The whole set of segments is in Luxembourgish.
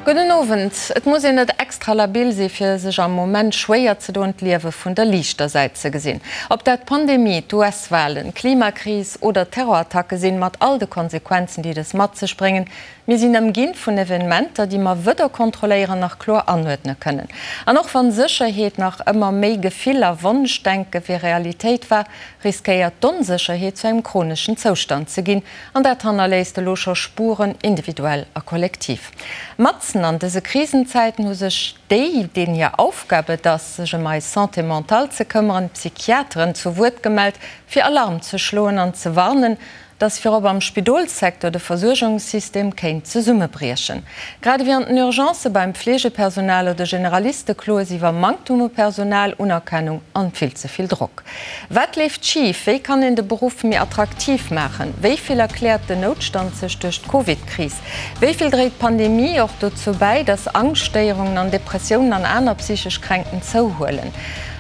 Gudden Owend. Et muss een net extra labil si fir sech am Moment schwéier ze doen d'Liewe vun der liichter Säit ze gesinn. Ob dat d'Pandemie, d'US-Walen, d'Klimakris oder Terrorattacke sinn, mat all de Konsequenzen déi dës mat sech bréngen, mir sinn ëmginn vun Evenementer déi mer wëder kontrolléieren nach kloer anuerdne kënnen. An och wann Sécherheet nach ëmmer méi Gefill a Wonschdenke wéi Realitéit war, riskéiert d'Onsécherheet zu engem chroneschen Zoustand ze ginn, An dat hannerléisst elo scho Spuren, individuell a kollektiv. Matzen an dëse Krisenzäiten hu sech déi, deenen hir Aufgab et ass, sech ëm eis Santé mentale ze këmmeren, d'Psychiateren, zu Wuert gemellt, fir Alarm ze schloen an ze warnen, dass virop am Spidolssecteur de Versuergungssystem kéint zesummebriechen. Grad ewéi an den Urgencë beim Fleegepersonal oder Generaliste kloe si iwwer Manktum u Personal, Unerkennung an vill ze vill Drock. Wat leeft schif? Wéi kann een de Beruff méi attraktiv maachen? Wéi vill erkläert den Noutstand sech duerch d'Covid-Kris? Wéi vill dréit d'Pandemie och dozou bäi, datt Angschtstéierungen an Depressiounen an aner psychesch Kränkten zouhuelen?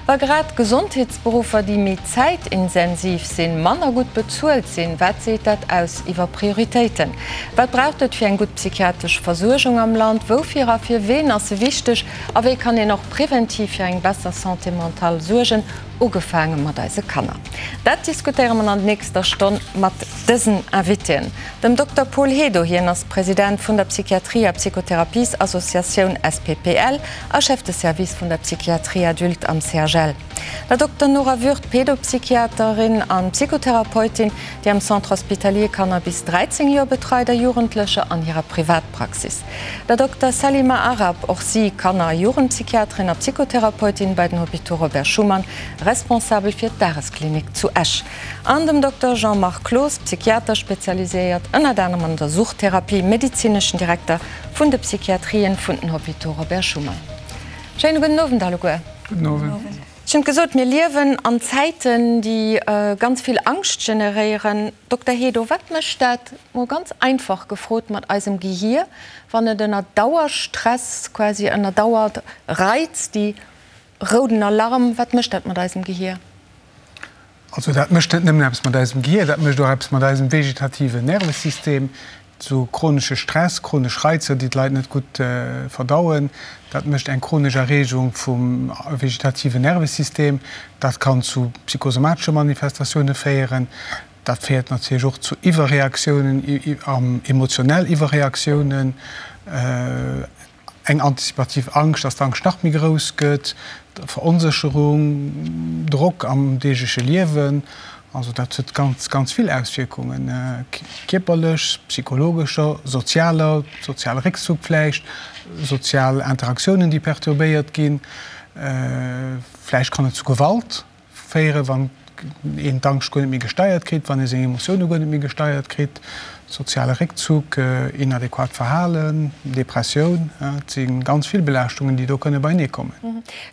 Wa grad Gesondheetsberuffer, déi méi zäitinsensiv sinn, manner gutt bezuelt sinn, wat seet dat aus iwwer Prioritéiten? Wat braucht et fir eng gutt psychiatresch Versuergung am Land? Woufir a fir ween ass se wichteg? A wéi kann een och preventiv fir eng besser Santé mentale suergen, ugefaange mat eise Kanner? Dat diskutéiere mer an nächster Stonn mat dësen Invitéen, dem Dokter Paul Hedo, hien ass President vun der Psychiatrie a Psychotherapiesassociatioun SPPL a Chef de Service vun der Psychiatrie adulte am CHL, der Dokter Nora Würth, Pedopsychiaterin an Psychotherapeutin, déi am Centre Hospitalier Kanner bis 13 Joer betreit a Jugendlecher an hirer Privatpraxis. Der Dokter Salima Arab, och si Kanner a Jugendpsychiaterin a Psychotherapeutin bei den Hôpitaux Robert Schuman, responsabel fir d'Dagesklinik zu Esch, an dem Dokter Jean-Marc Cloos, Psychiater, spezialiséiert ënnert anerem an der Suchttherapie, medezineschen Direkter vun de Psychiatrien vun den Hôpitaux Robert Schuman. Schéine gudden Owend alleguer. Gudden Owend. Ech hunn gesot, mir liewen an Zäiten, déi ganz vill Angscht generéieren. Dokter Hedo, wat mécht dat, mol ganz einfach gefrot, mat eisem Gehier, wann et ënner Dauerstress, quasi ënner Dauerreiz, déi rouden Alarm, wat mécht dat mat eisem Gehier? Also dat mécht net nëmmen eppes mat eisem Gehier, dat mécht och eppes mat eisem vegetativen Nervesystem. Sou chronesche Stress, chronesch Reizer, déi d'Leit net gutt verdauen, dat mécht eng chronesch Erreegung vum vegetativen Nervesystem. Dat kann zu psychosomatesche Manifestatioune féieren. Dat féiert natierlech och zu Iwwerreaktiounen, emotionell Iwwerreaktiounen. Eng antizipativ Angscht, dass d'Angscht nach méi grouss gëtt, Veronsécherung, Drock am deegleche Liewen. Also dat huet ganz, ganz vill Auswierkungen, kierperlech, psychologescher, sozialer, soziale Réckzuck vläicht, sozial Interaktiounen, déi perturbéiert ginn. Vläicht kann et zu Gewalt Féieren, wann een d'Angscht guer net méi gesteiert kritt, wann ee seng Emotioune guer net méi gesteiert kritt, soziale Réckzuck, inadequat Verhalen, Depressioun, et si ganz vill Belaaschtungen, déi do kënne beienee kommen.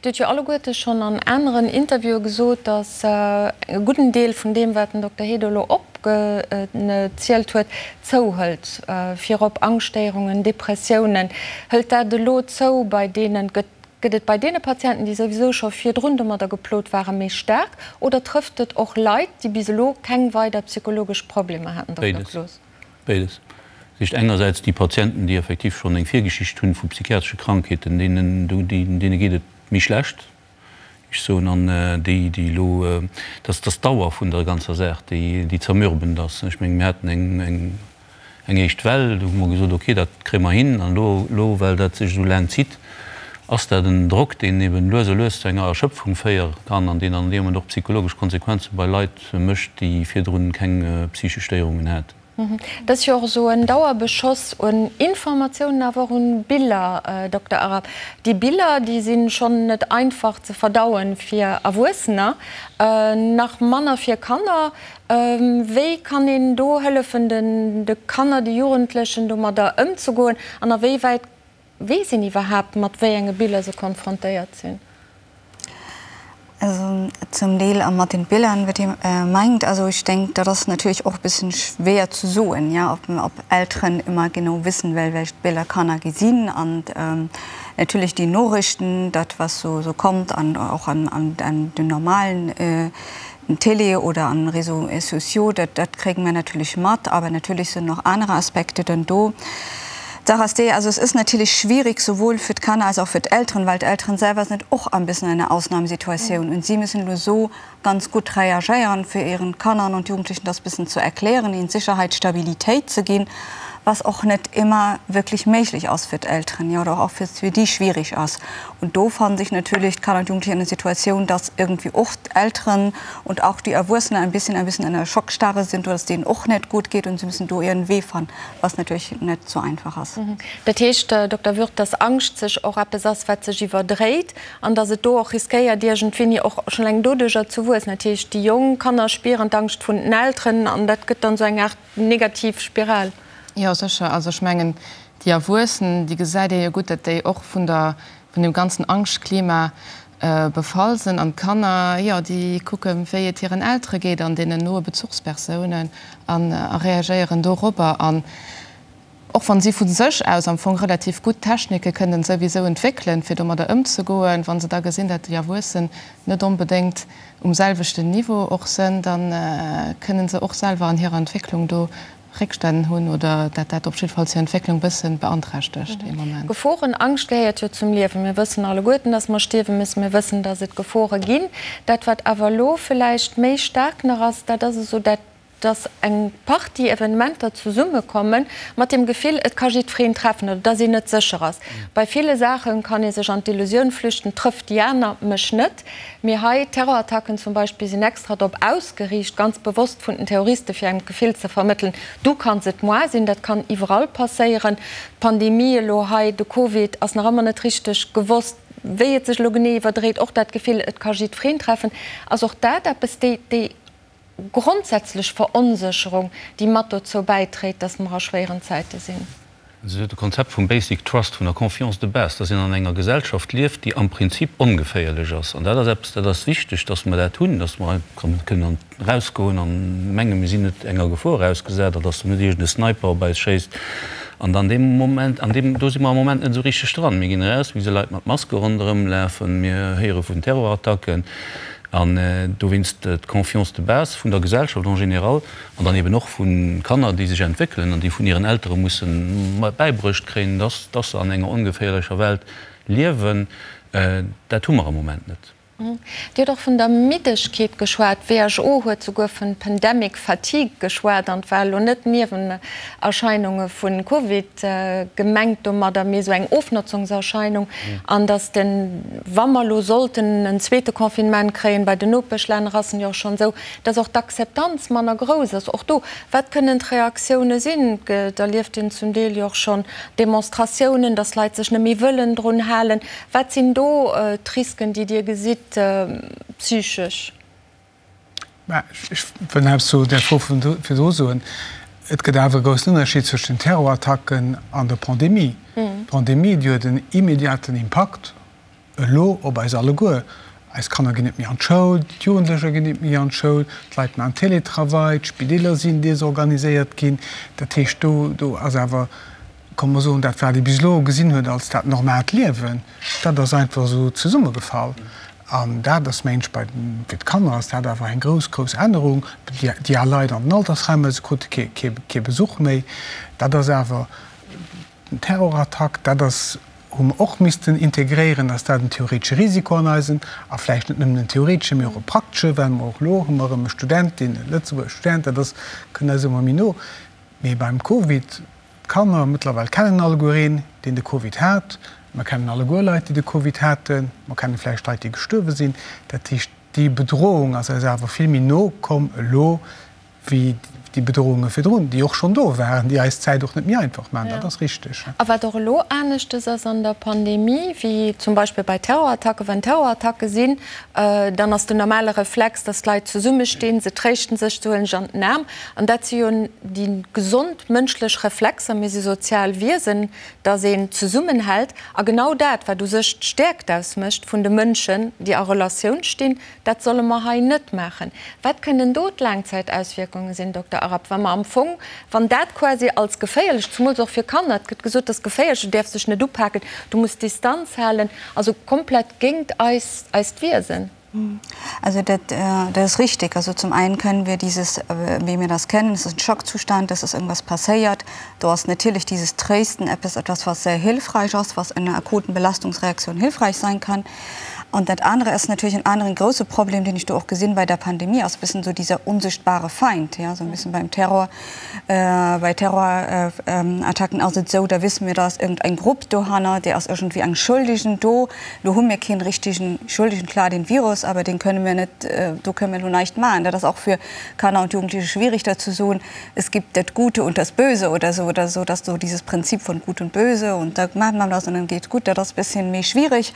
Dir hutt jo alleguerte schonn an aneren Interviewe gesot, datt e gudden Deel vun deem, wat den Dokter Hedo elo opgezielt huet, zouhëlt, virop Angschtstéierungen, Depressiounen. Hëlt dat elo zou bei deenen, gëtt Gëtt et bei deene Patienten, déi souwisou scho virdrun domadder geplot waren, méi staark oder trëfft et och Leit, déi bis elo keng weider psychologesch Problemer haten, Dokter Béides. Cloos? Béides. Dat heescht engersäits déi Patienten, déi effektiv schonn eng Virgeschicht hunn vu psychiatresche Krankheeten, deenen, deene geet et méi schlecht, ech soen, an déi, déi elo, dass, dass d'Dauer vun der ganzer Saach, déi, déi zermürbend ass. Ech mengen, mir haten eng, eng. Eng éischt Well, do hu mer gesot, ok, dat kréie mer hin. An elo, elo well dat sech esou laang zitt, ass dat en Drock, deen eben lues a lues zu enger Erschöpfung féiere kann an deen an deem Moment och psychologesch Konsequenze bei Leit mécht, déi virdrun keng psychesch Stéierungen haten. Et ass jo och esou en Dauerbeschoss un Informatiounen, awer och un Biller, Dokter Arab. Déi Biller, déi si schonn net einfach ze verdauen fir Erwuessener, nach manner fir Kanner. Wéi kann een do hëllefen, de Kanner, de Jugendlechen domadder ëmzegoen an a wéi wäit weess een iwwerhaapt, mat wéi enge Biller se konfrontéiert sinn? Also zum Deel mat den Bildern, wat Dir mengt. Also ech denk, dat ass natierlech och e bëssen schwéier ze soen, ja, ob ob Elteren ëmmer genau wissen, welch Biller Kanner gesinn an natierlech déi Norichten, dat was so so kommt an och an an den normalen Télé oder an Réseaux sociaux, dat, dat kréie mer natierlech mat, awer natierlech sinn och aner Aspekte dann do. D'Saach ass déi, also es ist natierlech schwierig, sowohl für d'Kanner als auch für d'Elteren, well d'Elteren selwer sind och ein bisschen in einer Ausnahmesituation und sie müssen elo so ganz gutt reagéieren, fir ihren Kannern und Jugendlichen das bisschen zu erklären, ihnen Sicherheit, Stabilitéit ze ginn, was och net immer wirklich méiglech ass fir d'Elteren, jo, oder och fir fir déi schwierig ass. Und do fannen sich natürlich d'Kanner und Jugendlichen in einer Situation, dass irgendwie och d'Elteren und auch die Erwuessenen ein bisschen ein bisschen in einer Schockstarre sind oder dass denen och net gut geht und sie müssen do ihren Wee fannen, was natürlich net so einfach ass. Dat heescht, Dokter Würth, dass Angscht sech och eppes ass, wat sech iwwerdréit an dass et do och riskéiert, iergendwéini och schonn eleng doduercher ze wuessen. Dat heescht, déi jonk Kanner spieren d'Angscht vun den Elteren an dat gëtt dann esou eng Aart negativ Spiral. Jo, sécher. Also ech mengen, déi Erwuessen, déi gesäit ee jo gutt, datt déi och vun der, vun deem ganzen Angschtklima befall sinn. An d'Kanner, jo, déi kucken, wéi et hiren Eltere geet an deenen noe Bezuchspersounen an a reagéieren dorobber. An och wann si vu sech aus am Fong relativ gutt Technike kënnen souwisou entwéckelen, fir domadder ëmzegoen, wa se da gesinn, datt déi Erwuessen net onbedéngt um selwechten Niveau och sënn, da kënnen se och selwer an hirer Entwécklung do Réckstänn hunn oder dat dat op jiddefalls hir Entwécklung bëssen beanträchtegt ee Moment. Geforen, Angscht gehéiert jo zum Liewen. Mir wëssen alleguerten, dass mer stierwe müssen. Mir wëssen, dass et Gefore ginn. Dat, wat awer elo vläicht méi staark nach ass, dat ass esou dat, dass eng Partie Evenementer zesummekomme mat dem Gefill, et ka jiddwereen treffen oder dass een net sécher ass. Bei ville Saache kann ee sech an d'Illusioun flüchten, trëfft déi aner mech net. Mee hei, Terrorattacken zum Beispill sinn extra drop ausgeriicht, ganz bewosst vun den Terroriste fir engem d'Gefill ze vermëttelen, du kanns et moi sinn. Dat kann iwwerall passéieren. D'Pandemie elo hei, de Covid, ass nach ëmmer net richteg gewosst, wéi et sech elo genee iwwerdréit. Och dat Gefill, et ka jiddwereen treffen, ass och dat eppes, déi, déi grondsätzlech Veronsécherung, déi mat dozou bäitréit, dass mer a schwéieren Zäite sinn. Also de Konzept vum Basic Trust, vun der Confiance de base, dass een an enger Gesellschaft lieft, déi am Prinzip ongeféierlech ass. An dat ass eppes, dat ass wichteg, dass mer dat hunn, dass mer kënnen erausgoen an mengen, mir sinn net enger Gefor ausgesat a dass do net iergend e Sniper op eis schéisst. An an deem Moment, an deem, do si mer am Moment net esou richteg dran. Mir ginn eraus, mir gesi Leit mat Maske ronderëmlafen, mir héiere vun Terrorattacken. An dowéinst d'Confiance de base vun der Gesellschaft en général an dann eben och vu Kanner, déi sech entwéckelen an déi vun hiren Eltere musse bäibruecht kréien, dass dass se an enger ongeféierlecher Welt liewen, dat hu mer am Moment net. Dir hutt och vun der Middegkeet geschwat. D'WHO huet souguer vun Pandemic fatigue geschwat an et war elo net Niewenerscheinunge vu Covid gemengt domadder, mee esou eng Ofnotzungserscheinung. An datt den, wa mer elo sollten en zweete Confinement kréien, bei den Nopeschlänner ass en jo och schonn esou, datt och d'Akzeptanz manner grouss ass. Och do, wat kënnen d'Reaktioune sinn? Et erlieft een zum Deel jo och schonn Demonstratiounen, datt Leit sech net méi wëllen drun halen. Wat sinn do d'Risken, déi Dir gesitt, psychesch? Mä ech wëll nach eppes zu där Fro vun virdru soen. Et gëtt awer e groussen Ënnerscheed zwëschen den Terrorattacken an der Pandemie. D'Pandemie, déi huet en immediaten Impakt elo op eis alleguer. Eis Kanner ginn net méi an d'Schoul, d'Jugendlecher ginn net méi an d'Schoul, d'Leit maachen Télétravail, d'Spideeler sinn desorganiséiert ginn. Dat heescht, do, do ass awer, komm mer soen, dat wat ee bis elo gesinn huet als dat normaalt Liewen, dat ass einfach esou zesummegefall. An dat ass, mengen ech, bei den, fir d'Kanner ass dat awer eng grouss, grouss Ännerung. Déi, déi al Leit an den Altersheimer, se krute kee, kee, kee Besuch méi. Dat ass awer den Terrorattack, dat ass, hu mer och missten integréieren, dass dat en theoretesche Risiko an eisen, a vläicht net nëmmen en theoretesche, mee och e praktesche, well mer och elo hu mer erëm e Student, deen, e Lëtzebuerger Student, dat ass, kënnt eis ëmmer méi no. Mee beim Covid, d'Kanner mëttlerweil kennen alleguer een, deen de Covid hat. Mer kennen alleguer Leit, déi de Covid haten. Mer kenne vläicht Leit, déi gestuerwe sinn. Dat heescht, déi Bedrohung ass eis awer vill méi no komm elo wéi déi Bedrohunge virdrun, déi och schonn do waren, déi eis d'Zäit och net méi einfach maachen. Dat ass richteg. A wat och elo aneschtes ass an der Pandemie wéi zum Beispill bei Terrorattacken, Wann Terrorattacke sinn, dann ass den normale Reflex, dass d'Leit zesummestinn, se tréischten sech, se huelen sech an den Aarm. An dat si jo déi gesond mënschlech Reflexer, mir si sozial Wiesen, dass een zesummenhält. A genau dat, wat u sech d'Stäerkt ausmécht vun de Mënschen, déi a Relatioun stinn, dat solle mer hei net maachen. Wat kënnen do d'Laangzäitauswierkunge sinn, Dokter Arap, wa mer am Fong, wann dat quasi als geféierlech, zumools och fir Kanner, et gëtt gesot, dat ass geféierlech, du däerfs dech net upaken, du muss Distanz halen, also komplett géingt eis, eist Wiesen? Also dat, dat ist richtig. Also zum einen können wir dieses, wie wir das kennen, es ist ein Schockzustand, es ist irgendwas passiert. Do ass natierlech dieses Tréisten eppes, etwas, was sehr hilfreich ass, was in einer akuten Belastungsreaktion hilfreich sein kann. Und dat anere ass natierlech en aneren grouse Problem, deen ech do och gesinn bei der Pandemie, ass e bëssen esou dieser unsichtbare Feind, ja, esou e bëssen beim Terror, bei Terrorattacken ass et esou, da wisse mir, da ass iergendeng Grupp dohanner, déi ass iergendwéi eng Schuldigen do. Lo hu mir keen richtigen Schuldigen, klar den Virus, awer deen kënne mir net, do kënne mir elo näischt maachen. Dat ass och fir Kanner und Jugendliche schwierig, dat ze soen. Es gibt das Gute und das Böse oder so oder so, dass so dieses Prinzip von Gut und Böse und da macht man das und dann geht's gut, dat ass bisschen méi schwierig.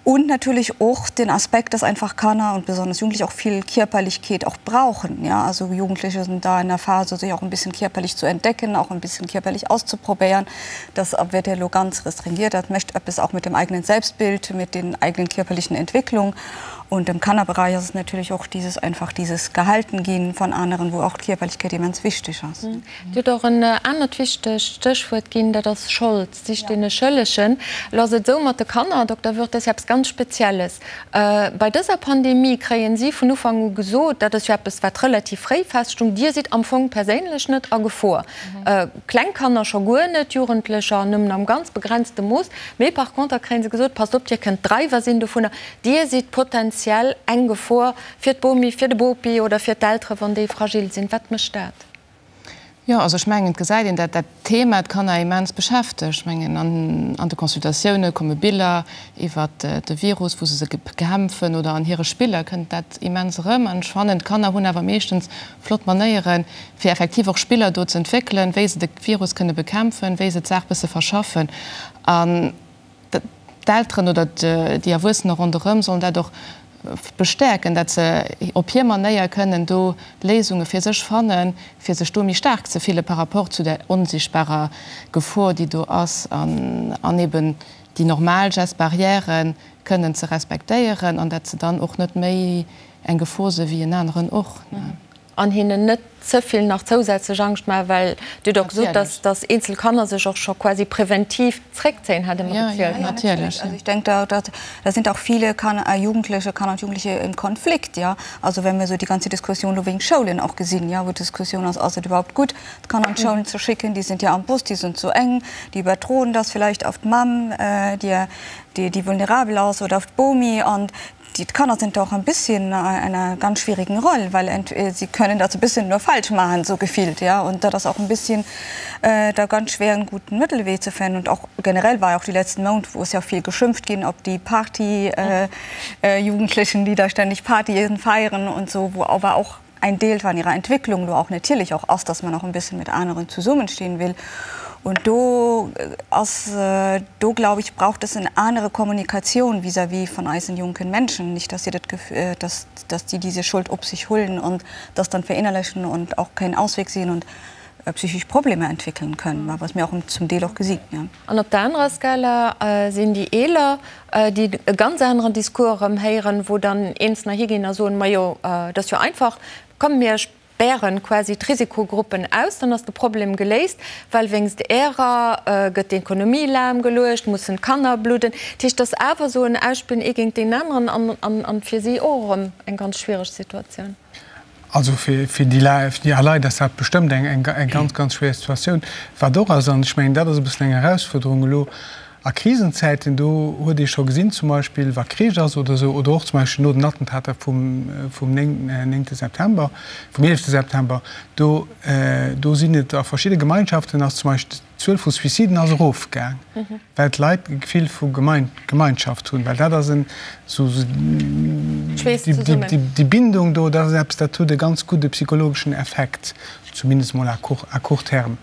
Und natürlich och den Aspekt, dass einfach Kanner und besonders Jugendliche auch viel Körperlichkeit auch brauchen. Ja, also Jugendliche sind da in der Phase, sich auch ein bisschen körperlich zu entdecken, auch ein bisschen körperlich auszuprobieren. Das wird ja lo ganz restringiert. Dat mécht eppes auch mit dem eigenen Selbstbild, mit den eigenen körperlichen Entwicklung. Und im Kannerbereich ass et natierlech och dieses einfach dieses gehalten ginn von aneren, wou och d'Kierperlechkeet immens wichteg ass. Dir hutt och en anert wichtegt Stéchwuert ginn, dat ass Schold. Sich dee Schëllegen. Elo ass et esou mat de Kanner, Dokter Würth, dat ass jo eppes ganz Spezielles. Bei dëser Pandemie kréien si vun Ufank u gesot, dat ass jo eppes wat relativ fréi feststung, Dir sidd am Fong perséinlech net a Gefor. Kleng Kanner scho guer net, Jugendlecher nëmmen am ganz begrenzte Mooss. Mee par conter kréie se gesot, passt op, Dir kënnt Dreiwer sinn dovunner. Dir sidd potentiell eng Gefor fir d'Bomi, fir de Bopi oder fir d'Eltere wann déi fragil sinn. Wat mécht dat? Jo, also ech mengen, et gesäit een, dat dat Thema d'Kanner immens beschäftegt. Ech mengen, an de Consultatioune komme Biller iwwert de Virus, wou se se bekämpfen, oder an hire Spiller kënnt dat immens erëm. An ech fannen, d'Kanner hunn awer meeschtens flott Manéieren, fir effektiv och Spiller do ze entwéckelen, wéi se de Virus kënne bekämpfen, wéi se d'Saach bësse verschaffen. An D'Elteren oder déi Erwuessener ronderëm sollen dat och bestäerken, dat se op hir Manéier kënnen do Léisunge fir sech fannen, fir sech do méi staark ze fille par rapport zu där onsichtbarer Gefor, déi do ass, an eben déi normal Gestes barrières kënnen ze respektéieren an dat se dann och net méi eng Gefor se wéi en aneren och. An hinnen net ze vill nach zousätzlech Angscht maachen, well Dir hutt och gesot, dass, dass eenzel Kanner sech och scho quasi präventiv zréckzéien, hat Der mer gezielt. Ja, natierlech. Also ich denke, da, da, da sind auch viele Kanner, Jugendliche, Kanner und Jugendliche im Konflikt, ja. Also wenn wir so die ganze Diskussion lo wegen Schoulen auch gesinn, ja, wou d'Diskussion ass, ass et überhaupt gutt, d'Kanner an d'Schoulen ze schicken, déi sind ja am Bus, déi sind zu eng, déi überdroen das vielleicht auf d'Mamm, déi, déi, déi vulnerabel ass, oder auf d'Bomi an Die Kanner sind doch ein bisschen in einer ganz schwierigen Rolle, weil sie können das ein bisschen nur falsch machen, so gefühlt, ja. Und da das auch ein bisschen äh, da ganz schwer einen guten Mittelweg zu finden. Und auch generell war ja auch die letzten Monate, wo es ja viel geschimpft ging, ob die Party äh, äh, Jugendlichen, die da ständig Party feiern und so, wo aber auch ein Deel van ihrer Entwicklung do och natierlech och ass, dass man och en bisschen mit aneren zesummenstehen will. Und do ass, do glaube ich, braucht es eng anere Kommunikation vis-à-vis von eisen jonken Menschen, nicht dass sie dat Gefühl, dass, dass die diese Schuld op sich holen und das dann verinnerlichen und auch keinen Ausweg sehen und psychisch Probleme entwickeln können, was mir och zum Deel och gesinn, ja. An op der anerer Skala sinn déi Eeler, déi e ganz aneren Discours erëm héieren, wou dann Eenzelner higinn a soen, Majo, et ass jo einfach, komm mir spären quasi d'Risikogruppen aus, dann ass de Problem geléist, well wéinst ärer gëtt d'Ekonomie lahmgeluecht, mussen d'Kanner bludden. Dat heescht, et ass awer esou en Ausspillen ee géint deen aneren an fir si och erëm eng ganz schwiereg Situatioun. Also fir déi al Leit ass dat bestëmmt eng ganz, ganz schwéier Situatioun. Wat och ass, an ech mengen, dat ass e bëssen eng Erausfuerderung elo a Krisenzäiten, do huet ee scho gesinn, zum Beispill wa Krich ass oder esou, oder och zum Beispill no den Attentater vum néngte September, vum eelefte September, do sinn et a verschidde Gemeinschaften ass zum Beispill d'Zuel vu Suiciden ass erofgaang, well d'Leit e Gefill vu Gemeinschaft hunn, well dat ass en esou déi Bindung do, dat ass eppes, dat huet e ganz gudde psychologeschen Effekt, zumindest mol à court terme.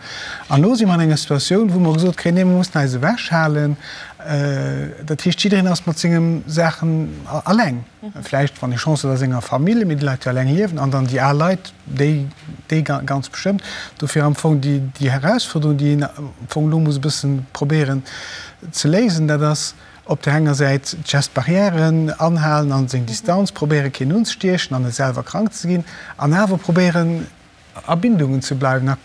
An elo si mer an enger Situatioun, wou mer gesot kréien, nee, mer mussen eis ewechhalen. Dat heescht, jiddereen ass mat senge Saachen alleng, vläicht, wann ee Chance huet, a senger Famill, mee déi Leit, déi alleng liewen, an dann déi al Leit, Déi, déi ganz bestëmmt. Dofir am Fong déi, déi Herausforderung, déi een am Fong elo muss e bëssen probéieren ze léisen, dat ass op där enger Säit d'Gestes barrièren anhalen an seng Distanz, probéieren keen unzestiechen an net selwer krank ze ginn, an awer probéieren a Bindungen ze bleiwen a.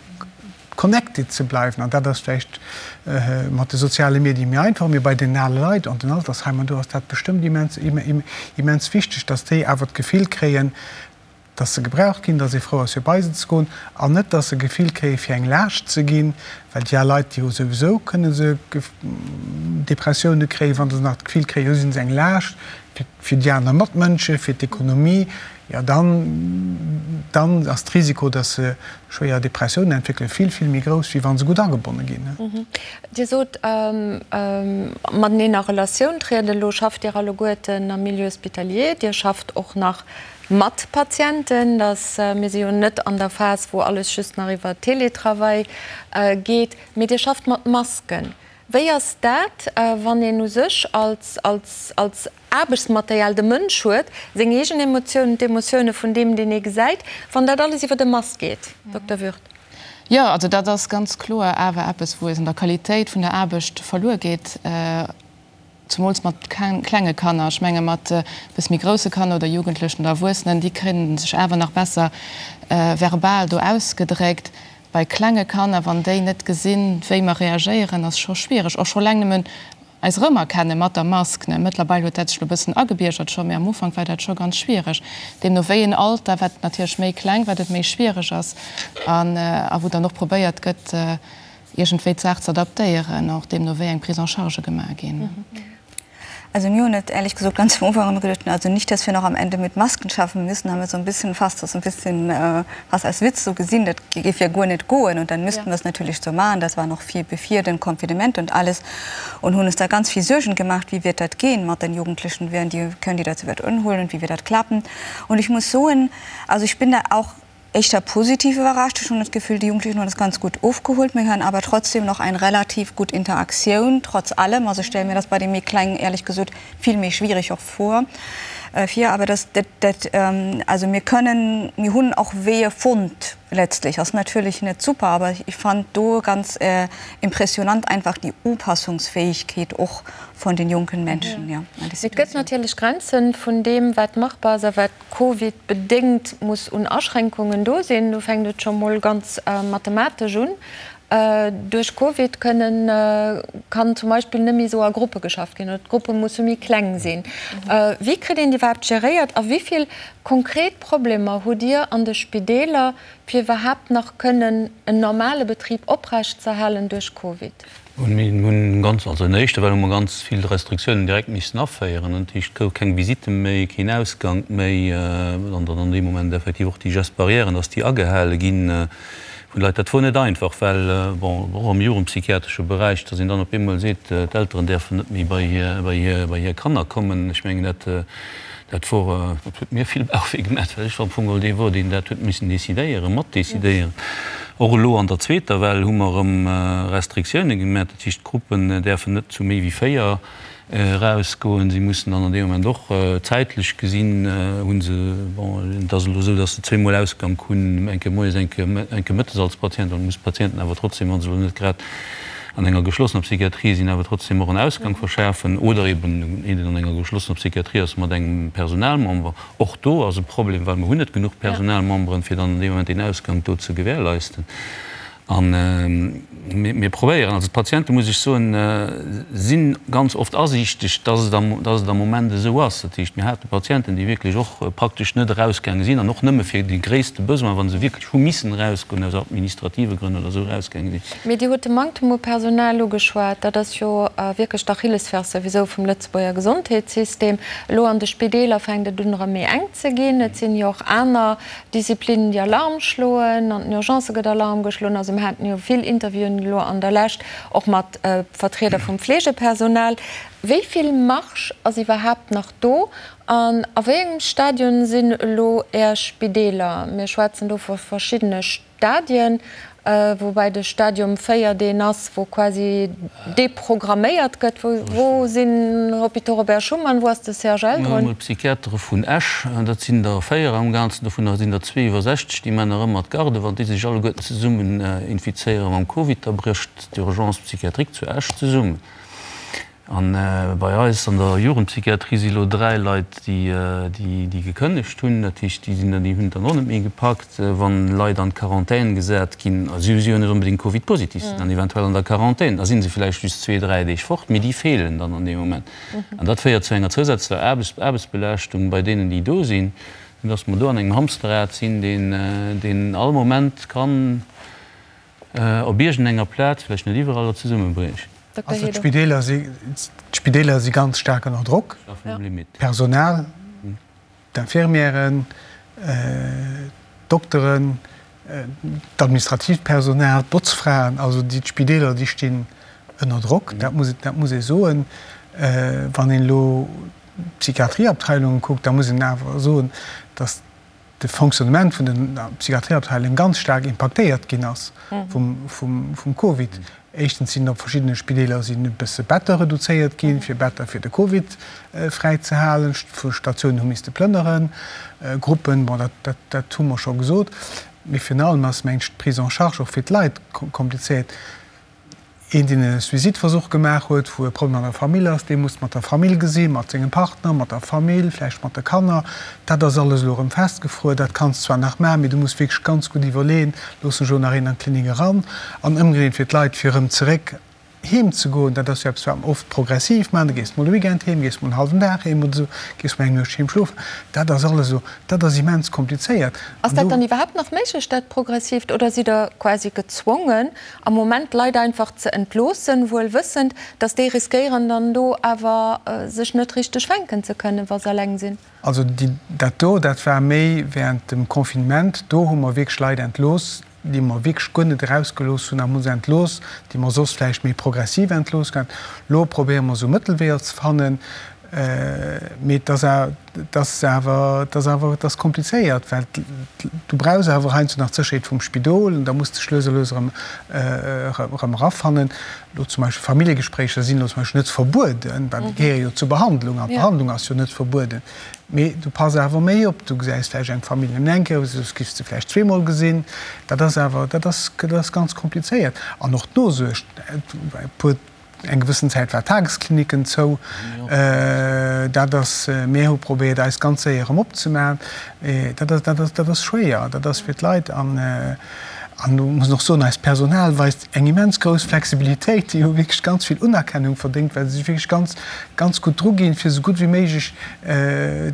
connected ze bleiwen. An dat ass vläicht mat de soziale Medie méi einfach, mee bei den ale Leit an den Altersheimer, do ass dat bestëmmt immens, immens wichteg, dass déi awer d'Gefill kréien, dass se gebraucht ginn, dass ee frou ass fir bei se ze goen an net, dass se Gefill kréie fir eng Laascht ze ginn, well déi al Leit, déi hu souwisou, kënne se Depressioune kréien, wa se nach d'Gefill kréien, elo si se eng Laascht fir déi aner Matmënsche, fir d'Ekonomie, jo dann, dann ass d'Risiko, dass se schwéier Depressiounen entwéckelen, vill, vill méi grouss, wéi wa se gutt agebonne ginn. Dir sot, mateneen a Relatioun trieden. Elo schafft Dir alleguerten am Milieu hospitalier, Dir schafft och nach Mat Patienten, dass mir si jo net an der Phas, wou alles just nach iwwer Teletravail geet, mee Dir schafft mat Masken. Wéi ass dat, wann een u sech als, als, als Aarbechtsmaterial de Mënsch huet, seng eegen Emotiounen, d'Emotioune vun deem, deen ee gesäit, wann dat alles iwwer e Mask geet? Dokter Würth. Jo, also dat ass ganz kloer awer eppes, wou es an der Qualitéit vun der Aarbecht verluer geet. Zemools mat klenge Kanner. Ech menge mat e bësse méi grousse Kanner oder Jugendlechen oder Erwuessenen, déi kréien sech awer nach besser verbal do ausgedréckt. Bei klenge Kanner, wann déi net gesinn, wéi mer reagéieren, ass scho schwiereg. Och scho eleng nëmmen eis erëmerkenne mat der Mask. Mëttlerweil huet dat sech elo e bëssen agebiergert scho, mee am Ufank war dat scho ganz schwiereg. Deemno wéi een Alter, wat natierlech méi kleng, wat et méi schwiereg ass a wou dann och probéiert gëtt, iergendwéi d'Saach ze adaptéieren, och deemno wéi eng Prise en charge gemaach ginn. Also mir hunn et ehrlich gesagt ganz am Ufank immer gedacht, also nicht, dass wir noch am Ende mit Masken schaffen müssen, haben wir so ein bisschen fast das ein bisschen äh, fast als Witz so gesehen, dat géif ja guer net goen und dann müssten wir es natürlich so machen, das war noch viel bevor den Confinement und alles und hunn uns da ganz viel Suergen gemacht, wie wird dat gehen mat den Jugendlichen, werden die, können die dat souwäit unholen und wie wird dat klappen und ich muss soen, also ich bin da auch Éischter positiv iwwerrascht. Ech hunn das Gefühl, déi Jugendlichen hunn das ganz gut ofgeholt. Mir hunn awer trotzdem noch eng relativ gutt Interaktioun, trotz allem. Also ech stelle mir das bei de méi Klengen éierlech gesot vill méi schwierig och vor, vir. Awer das, dat, dat, also mir kënnen, mir hunn och Weeër fonnt letztlich. Ass natierlech net super, awer ech fand do ganz impressionant einfach déi Upassungsfähigkeet och von den jonken Menschen, ja, an déi Situatioun. Et gëtt natierlech Grenzen vun deem, wat machbar ass a wat Covid bedéngt muss un Aschränkungen do sinn. Do fänkt et scho mol ganz mathematesch un. Duerch Covid kënnen, kann zum Beispill net méi esou a Gruppe geschafft ginn oder d'Gruppe musse méi kleng sinn. Wéi kritt een déi iwwerhaapt geréiert a wéi vill konkret Problemer hutt Dir an de Spideeler, fir iwwerhaapt nach kënnen en normale Betrib oprechtzeerhalen duerch Covid? Mir hunn ganz, also an der éischter Well hu mer ganz vill Restriktiounen direkt missen aféieren. Dat heescht, et gouf keng Visite méi, keen Ausgank méi an dann an deem Moment effektiv och déi Gestes barrièren, dass déi agehale gi vun de Leit. Dat wor net einfach, well, bon, och am jugendpsychiatresche Beräich, dass een dann op eemol seet, d'Elteren däerfen net méi bei hir, bei hir, bei hir Kanner kommen. Ech mengen, dat, Dat wor, dat huet mir vill Bauchwéi gemaach, well ech am Fong geholl dee wor, deen dat huet missen decidéieren, matdecidéieren. Och elo an der zweeter Well hu mer erëm Restriktioune gemaach. Dat heescht, d'Gruppen däerfen net zu méi wéi 4 erausgoen. Si mussen dann an deem Moment och zäitlech gesinn, hu se, bon, et ass elo esou, datt se zweemol Ausgank hunn, eng Kéier moies, eng Kéier, eng Kéier mëttes als Patient. Dann muss d'Patienten awer trotzdem, wa se elo net grad an enger geschlossener Psychiatrie sinn, awer trotzdem och en Ausgang verschafen oder eben een, deen an enger geschlossener Psychiatrie ass mat engem Personalmember. Och do ass e Problem, well mer hunn net genuch Personalmemberen, fir dann an deem Moment deen Ausgang do ze gewährleisten. A mir probéieren, also d'Patiente muss ech soen, si ganz oft asiichteg, dass et am, dass et am Moment esou ass. Dat heescht, mir hate Patienten, déi wierklech och praktesch net erausgaange sinn an och nëmme fir de gréisste Besoin, wa se wierklech hu missen erausgoen, aus administrative Grënn oder esou erausgaange sinn. Mee Dir hutt de Manktem u Personal ugeschwat. Dat ass jo wierklech d'Achillesferse souwisou vum Lëtzebuerger Gesondheetssystem. Elo an de Spideeler fänkt et un erëm méi enk ze ginn. Et sinn jo och aner Disziplinnen, déi Alarm schloen. An den Urgencë gëtt Alarm geschloen. Also mir haten jo vill Interviewen elo an der Lescht och mat Vertrieder vum Fleegepersonal. Wéi vill Marge ass iwwerhaapt nach do? An a wéi engem Stadion sinn elo Är Spideeler? Mir schwätzen do vu verschiddene Stadien, woubäi de Stadium 4 deen ass, wou quasi deprogramméiert gëtt. Wou sinn Hôpitaux Robert Schuman, wou ass de CHL drun? Mir hunn d'Psychiatere vun Esch, dat sinn der 4 am Ganzen, dovunner sinn der zwee iwwer 60, déi man nach ëmmer d'Garde. Wann déi sech alleguerten zesummen infizéiere mam Covid, da brécht d'Urgence psychiatrique zu Esch zesummen. A bei eis an der Jugendpsychiatrie si lo 3 Leit, déi gekënnegt hunn. Dat heescht, déi sinn dann, déi hunn et dann och net méi gepackt. Wann Leit an d'Quarantän gesat ginn, a si si jo net onbedéngt Covid-positiv, sinn dann eventuell an der Quarantän, da si se vläicht just zwee, dräi Deeg fort, mee déi feelen dann an deem Moment. An dat féiert zu enger zousätzlecher Aarbechtsbelaaschtung bei deenen, déi do sinn, soudass mer do an engem Hamsterrad sinn, deen all Moment kann op iergendenger Plaz, vläicht net iwwerall, zesummebriechen. Also d'Spideeler si, d'Spideeler si ganz staark ënner Drock, d'Personal, d'Infirmièren, d'Dokteren, d'administratiivt Personal, d'Botzfraen, also déi d'Spideeler, déi stinn ënner Drock, dat muss, dat muss ee soen. Wann een elo d'Psychiatrieabteilungen kuckt, da muss een awer soen, datt de Fonctionnement vun den Psychiatrieabteilungen ganz staark impaktéiert ginn ass vum Covid. Éischtens sinn op verschiddene Spideeler sinn e bësse Better reduzéiert ginn, fir Better fir de Covid fräi ze halen. Statiounen hu misste plënneren, Gruppen, bon, dat, dat hu mer scho gesot. Mee virun allem ass, mengen ech, d'Prise en charge och fir d'Leit komplizéiert. Een, deen e Suicideversuch gemaach huet, wou e Problem an der Famill ass, dee muss mat der Famill gesinn, mat sengem Partner, mat der Famill, vläicht mat de Kanner. Dat ass alles elo erëm festgefruer. Dat kanns zwar nach maachen, mee du muss wierklech ganz gutt iwwerleeën, Loossen ech elo nach een an d'Klinik eran? An ëmgedréint fir d'Leit, fir erëm zeréck heem ze goen, dat ass jo eppes, wat mer oft progressiv maachen, du gees mol e Weekend heem, gees mol en hallwen Dag heem oder esou, gees mol eng Nuecht heem schlofen. Dat ass alles elo, dat ass immens komplizéiert. Ass dat dann iwwerhaapt nach méiglech, dat Progressiivt, oder sidd Der quasi gezwongen, am Moment d'Leit einfach ze entloossen, wuel wëssend, datt déi riskéieren dann do awer sech net richteg fänken ze kënnen, wa se eleng sinn? Also dat do, dat war méi während dem Confinement, do hu mer wierklech Leit entlooss, déi mer wierklech guer net erausgelooss hunn a hu se entlooss, déi mer soss vläicht méi progressiv entlooss gehat. Elo probéiere mer esou Mëttelweeër ze fannen, mee et ass Et ass awer, et ass awer, et ass komplizéiert, well du brauchs awer heiansdo nach d'Sécherheet vum Spidol an da muss de dech lues a lues erëm, erëm erafannen. Elo zum Beispill Familljegespréicher sinn elo zum Beispill net verbueden, well déi gehéiere jo zur Behandlung an d'Behandlung ass jo net verbueden. Mee du pass awer méi op, du gesäis vläicht eng Famill nëmmen eng Kéier, soss giffs de vläicht zweemol gesinn. Dat ass awer, dat ass, dat ass ganz komplizéiert. An och d'Nosuerg, e puer Eng gewëssen Zäit war d'Tageskliniken zou. Dat ass, mir hu probéiert eis ganz séier erëm opzemaachen. Dat ass, dat ass, dat ass schwéier. Dat ass fir d'Leit an, an do muss een och soen, eist Personal weist eng immens grouss Flexibilitéit. Déi hu wierklech ganz vill Unerkennung verdéngt, well se sech wierklech ganz, ganz gutt druginn, fir esou gutt wéi méiglech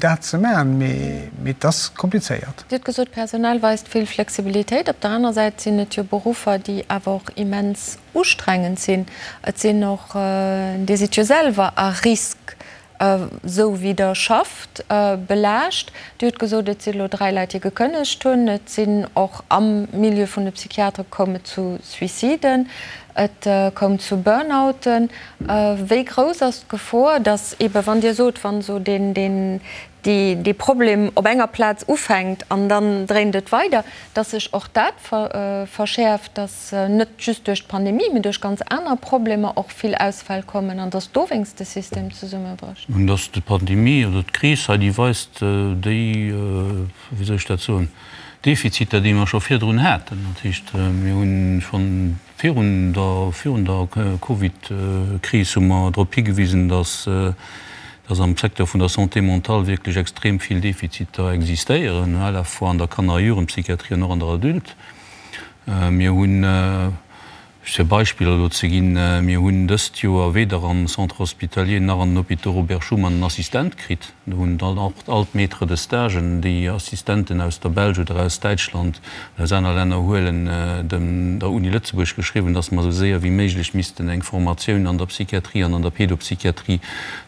dat ze maachen. Mee, mee et ass komplizéiert. Dir hutt gesot, d'Personal weist vill Flexibilitéit. Op der aner Säit sinn et jo Beruffer, déi awer och immens ustrengend sinn. Et sinn och, Dir sidd jo selwer à risque, esou wéi Der schafft, belaascht. Dir hutt gesot, et si elo 3 Leit, déi gekënnegt hunn. Et sinn och am Milieu vun de Psychiatere koum et zu Suiciden, et koum zu Burnouten. Wéi grouss ass d'Gefor, datt eebe wann Dir sot, wann esou deen, deen, dee Problem op enger Plaz ufänkt an dann dréint et weider, datt sech och dat verschäerft, datt net just duerch d'Pandemie, mee duerch ganz aner Problemer och vill Ausfäll kommen an datt dowéinst de System zesummebrécht? Nun, datt d'Pandemie oder d'Kris hei, déi weist déi, wéi soll ech dat soen, Defiziter, déi mer scho virdrun haten. Dat heescht, mir hu schonn Virun der virun der Covid-Kris hu mer drop higewisen, dass dass am Secteur vun der Santé mentale wierklech extrem vill Defiziter existéieren, à la fois an der Kanner a Jugendpsychiatrie an och an der Adulte. Mir hunn, just fir Beispiller elo ze ginn, mir hunn dëst Joer weder am Centre hospitalier nach an den Hôpitaux Robert Schuman en Assistent kritt. Do hunn dann och all d'Maîtres de Stagen, déi Assistenten aus der Belsch oder aus Däitschland an aus aner Länner huelen, dem der Uni Lëtzebuerg geschriwwen, dass mer esou séier wéi méiglech missten eng Formatioun an der Psychiatrie an an der Pédopsychiatrie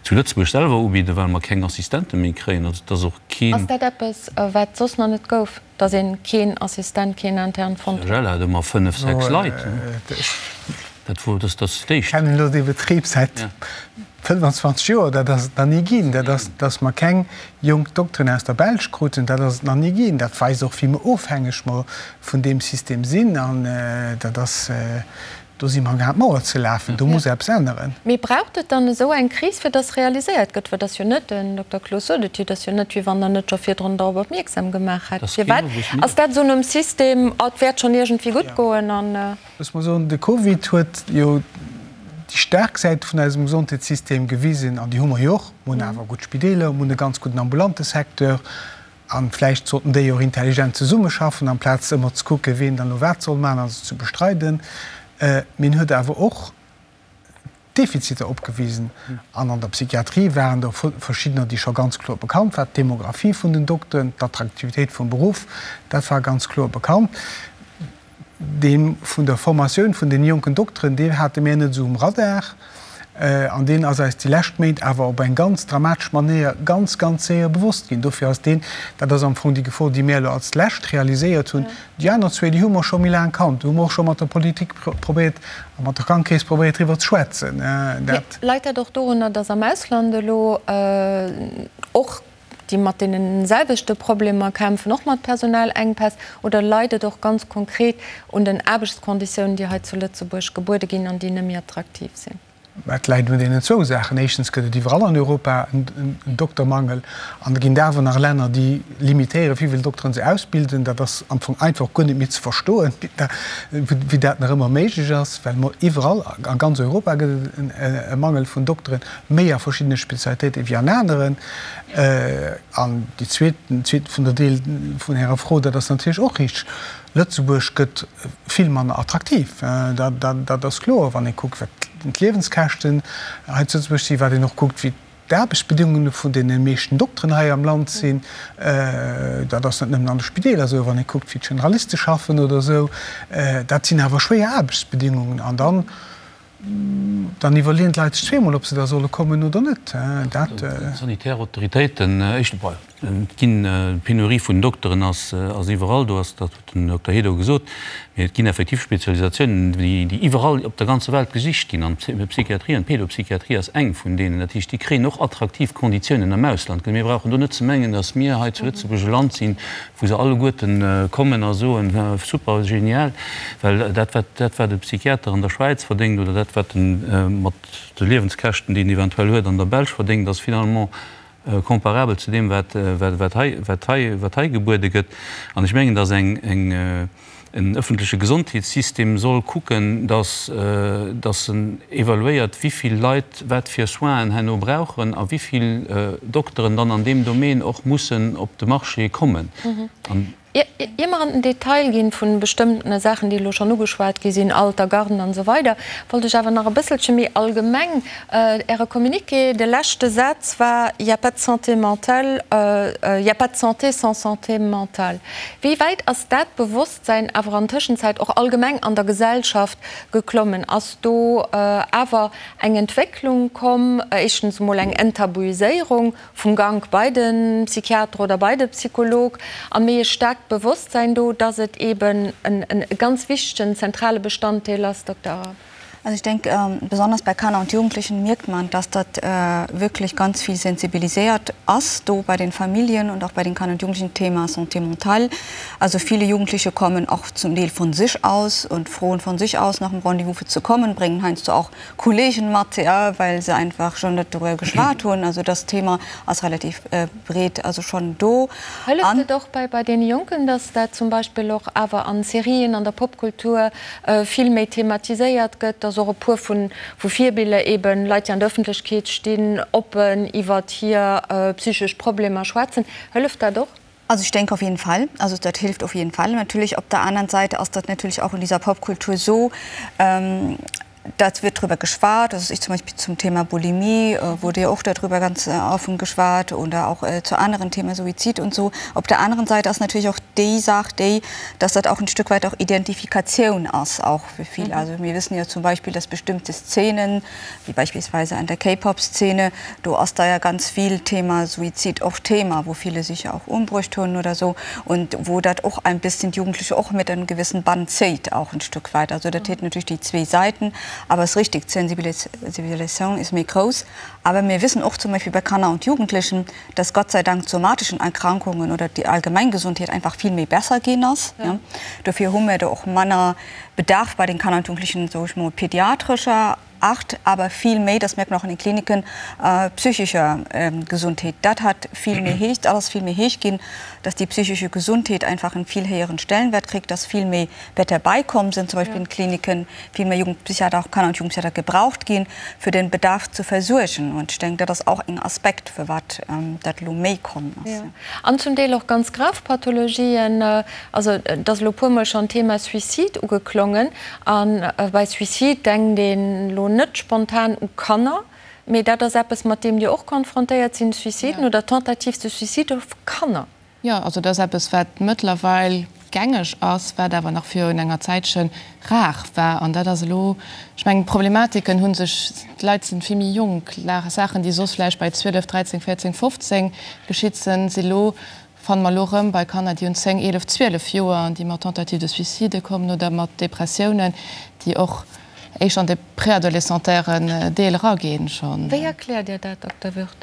zu Lëtzebuerg selwer ubidden, well mer keng Assistente méi kréien. Also et ass och keen. Ass dat eppes, wat soss nach net gouf, dass ee keen Assistent, keen Intern fonnt huet? CHL hat ëmmer fënnef, sechs Leit. Dat wor, dat ass d'éischt. Ech kennen elo dee Betrib säit 25 Joer, dat ass et nach ni ginn. Dat ass, datt mer keng jonk Dokteren aus der Belsch kruten, dat ass et nach ni ginn. Dat weist och, wéi mer ofhängeg mer vun deem System sinn. An dat ass, do si mer amgaang d'Mauer ze lafen. Do muss eppes änneren. Mee braucht et dann esou eng Kris, fir datt realiséiert gëtt? Well et ass jo net, den Dokter Cloos sot et jo, et ass jo net, wéi wann Der net scho virdrun dorop opmierksam gemaach hätt. Firwat ass dat esou nom System, oh, et wäert schonn iergendwéi gutt goen an. Looss mer soen, de Covid huet jo. déi staark Säite vun eisem Gesondheetssystem gewisen, an déi hu mer jo och. Mer hunn awer gutt Spideeler, mer hunn e ganz gudden ambulante Secteur. A vläicht sollten déi och intelligent zesummeschaffen, amplaz ëmmer ze kucken, wien dann elo wat soll maachen a sech ze bestreiden. Mee en huet awer och Defiziter opgewisen. An an der Psychiatrie waren der verschiddener, déi scho ganz kloer bekannt waren, d'Demographie vun den Dokteren, d'Attraktivitéit vum Beruff, dat war ganz kloer bekannt. Dee vun der Formatioun vun deene jonken Dokteren, deen hate mär net esou um Radar. An deen ass eis déi lescht Méint awer op eng ganz dramatesch Manéier ganz, ganz séier bewosst ginn. Dofir ass deen, dat ass am Fong déi Gefor, déi mär elo als lescht realiséiert hunn. Déi aner zwee, déi hu mer scho méi laang kannt. Do hu mer och scho mat der Politik probéiert a mat der Krankekeess probéiert driwwer ze schwätzen. Dat. Leit dat och dorunner, datt am Ausland elo och déi mat deene selwechte Problemer kämpfen, och mat Personalengpäss, oder leit et och ganz konkret un den Aarbechtskonditiounen, déi hei zu Lëtzebuerg gebuede ginn an déi net méi attraktiv sinn? Et läit un deenen zwou Saachen. Éischtens gëtt et iwwerall an Europa en Doktermangel an da ginn et awer nach Länner, déi limitéieren, wéi vill Dokteren se ausbilden. Dat ass am Fong einfach guer net méi ze verstoen, wéi dat nach ëmmer méiglech ass, well mer iwwerall, a ganz Europa gëtt et e Mangel vun Dokteren, méi a verschiddene Spezialitéiten wéi an aneren. An déi zweet, den zweeten vun der Deel vun Ärer Fro, dat ass natierlech och richteg, Lëtzebuerg gëtt vill manner attraktiv. Dat ass kloer, wann ee kuckt, wat d'Liewenskäschten hei zu Lëtzebuerg sinn, wat een och kuckt, wéi d'Aarbechtsbedingunge vun deene meeschten Dokteren hei am Land sinn. Dat ass net nëmmen an de Spideeler esou, wann ee kuckt, wéi d'Generaliste schaffen oder esou. Dat sinn awer schwéier Aarbechtsbedingungen. An dann Dann iwwerleeën d'Leit sech zweemol, ob se da solle kommen oder net. Dat. D'sanitär Autoritéiten, éischt, et ginn, d'Penurie vun Dokteren ass iwwerall do, ass, dat huet den Dokter Hédo gesot, mee et ginn effektiv Spezialisatiounen, déi iwwerall op der ganzer Welt gesicht ginn. An d'Psychiatrie an d'Pédopsychiatrie ass eng vun deenen. Dat heescht, déi kréien och attraktiv Konditiounen am Ausland. Mir brauchen do net ze mengen, datt mir hei zu Lëtzebuerg e Land sinn, wou se alleguerten kommen a soen, super, genial, well dat wat dat wat e Psychiater an der Schwäiz verdéngt oder dat wat en mat de Liewenskäschten déi en eventuell huet an der Belsch verdéngt, ass finalement comparabel zu deem wat wat hei wat hei wat hei gebuede gëtt. An ech mengen, datt eng eng En ëffentleche Gesondheetssystem soll kucken, datt datt en evaluéiert, wéi vill Leit wat fir Soinen herno brauchen a wéi vill Dokteren dann an deem Domaine och mussen op de Marché kommen. An. Ier mer an den Detail ginn vu bestëmmtene Saachen, déi elo schonn ugeschwat gi sinn, Alter, Garden an esou weider, wollt ech awer nach e bësselche méi allgemeng Äre Communiqué, de leschte Saz war, Il y a pas de santé mentale, il y a pas de santé sans santé mentale. Wéi wäit ass dat Bewosstsäin awer an Tëschenzäit och allgemeng an der Gesellschaft geklommen? Ass do awer eng Entwécklung komm, éischtens emol eng Enttabuiséierung vum Gank bei de Psychiater oder bei de Psycholog a méi e staarkt Bewosstsäin do, dass et eeben e ganz wichtegen, zentrale Bestanddeel ass, Dokter Arap? Also ich denke, besonders bei Kanner und Jugendlichen mierkt man, dass dat wirklich ganz vill sensibilisiert ass do bei den Familien und auch bei den Kanner und Jugendlichen, Thema Santé mentale. Also viele Jugendliche kommen auch zum Deel von sich aus und froen von sich aus nach dem Rendez-vous fir ze kommen, bréngen heiansdo auch Kollegen mat, ja, well se einfach schon net dorüwer geschwat hunn. Also das Thema ass relativ breet, also schon do. Hëlleft et och bei bei deene Jonken, dass dat zum Beispill och awer an Serien, an der Popkultur vill méi thematiséiert gëtt, dass och e puer vu vu Virbiller eben Leit, déi an der Ëffentlechkeet stinn, oppen iwwert hir psychesch Problemer schwätzen? Hëlleft dat och? Also ich denke auf jeden Fall. Also dat hilft auf jeden Fall. Natürlich op der anderen Seite ass dat natürlich auch in dieser Popkultur so, dat wird drüber geschwat, also ich zum Beispiel zum Thema Bulimie wurde ja och darüber ganz offen geschwat oder auch zu anderen Themen, Suizid und so. Op der anderen Seite ass natürlich och déi Saach déi, dass dat auch ein Stück weit auch Identifikatioun ass auch für viele. Also mir wissen ja zum Beispiel, dass bestimmte Szenen, wéi beispielsweise an der K-Pop-Szene, do ass da ja ganz vill Thema Suizid och Thema, wou viele sich ja auch umbruecht hunn oder so und wou dat och ein bisschen d'Jugendliche och mit en gewissen Bann zéit auch ein Stück weit. Also dat huet natürlich déi zwee Seiten, awer es richtig, d'Sensibilisation ist méi grouss. Awer mir wissen och zum Beispiel bei Kanner und Jugendlichen, dass Gott sei Dank d'somatischen Erkrankungen oder déi allgemeng Gesundheet einfach vill méi besser ginn ass. Dofir hu mir do och manner Bedarf bei den Kanner und Jugendlichen, soe ech mol, pädiatrescher. Art, aber viel méi, das merkt man auch in den Kliniken, psychischer Gesundheet. Dat hat vill méi héich, dat ass vill méi héich ginn, dass déi psychische Gesundheet einfach en vill héieren Stellenwert kritt, dass vill méi Better beikomm sinn, zum Beispill in den Kliniken, vill méi Jugendpsychiater, auch Kanner und Jugendpsychiater gebraucht ginn, fir den Bedarf zu versuergen. Und ech denken, dat ass och en Aspekt, firwat dat elo méi komm ass. An zum Deel och ganz grav Pathologien. Also et ass elo e puermol schonn d'Thema Suicide ugeklongen. A bei Suicide denkt een elo net spontan u Kanner, mee dat ass eppes, mat deem Dir och konfrontéiert sinn, Suiciden oder Tentatives de suicide vu Kanner. Jo, also dat ass eppes, wat mëttlerweil gängeg ass, wat awer nach virun enger Zäitche rar war. An dat ass elo, ech mengen, d'Problematiken hu sech, d'Leit si vill méi jonk, Saachen, déi soss vläicht bei 12, 13, 14, 15 geschitt sinn, si lo, fanne mer elo erëm bei Kanner, déi hunn 10, 11, 12 Joer an déi mat Tentative de suicide kommen oder mat Depressiounen, déi och éischter an de préadolescentairen Deel eraginn schonn. Wéi erkläert Dir dat, Dokter Würth?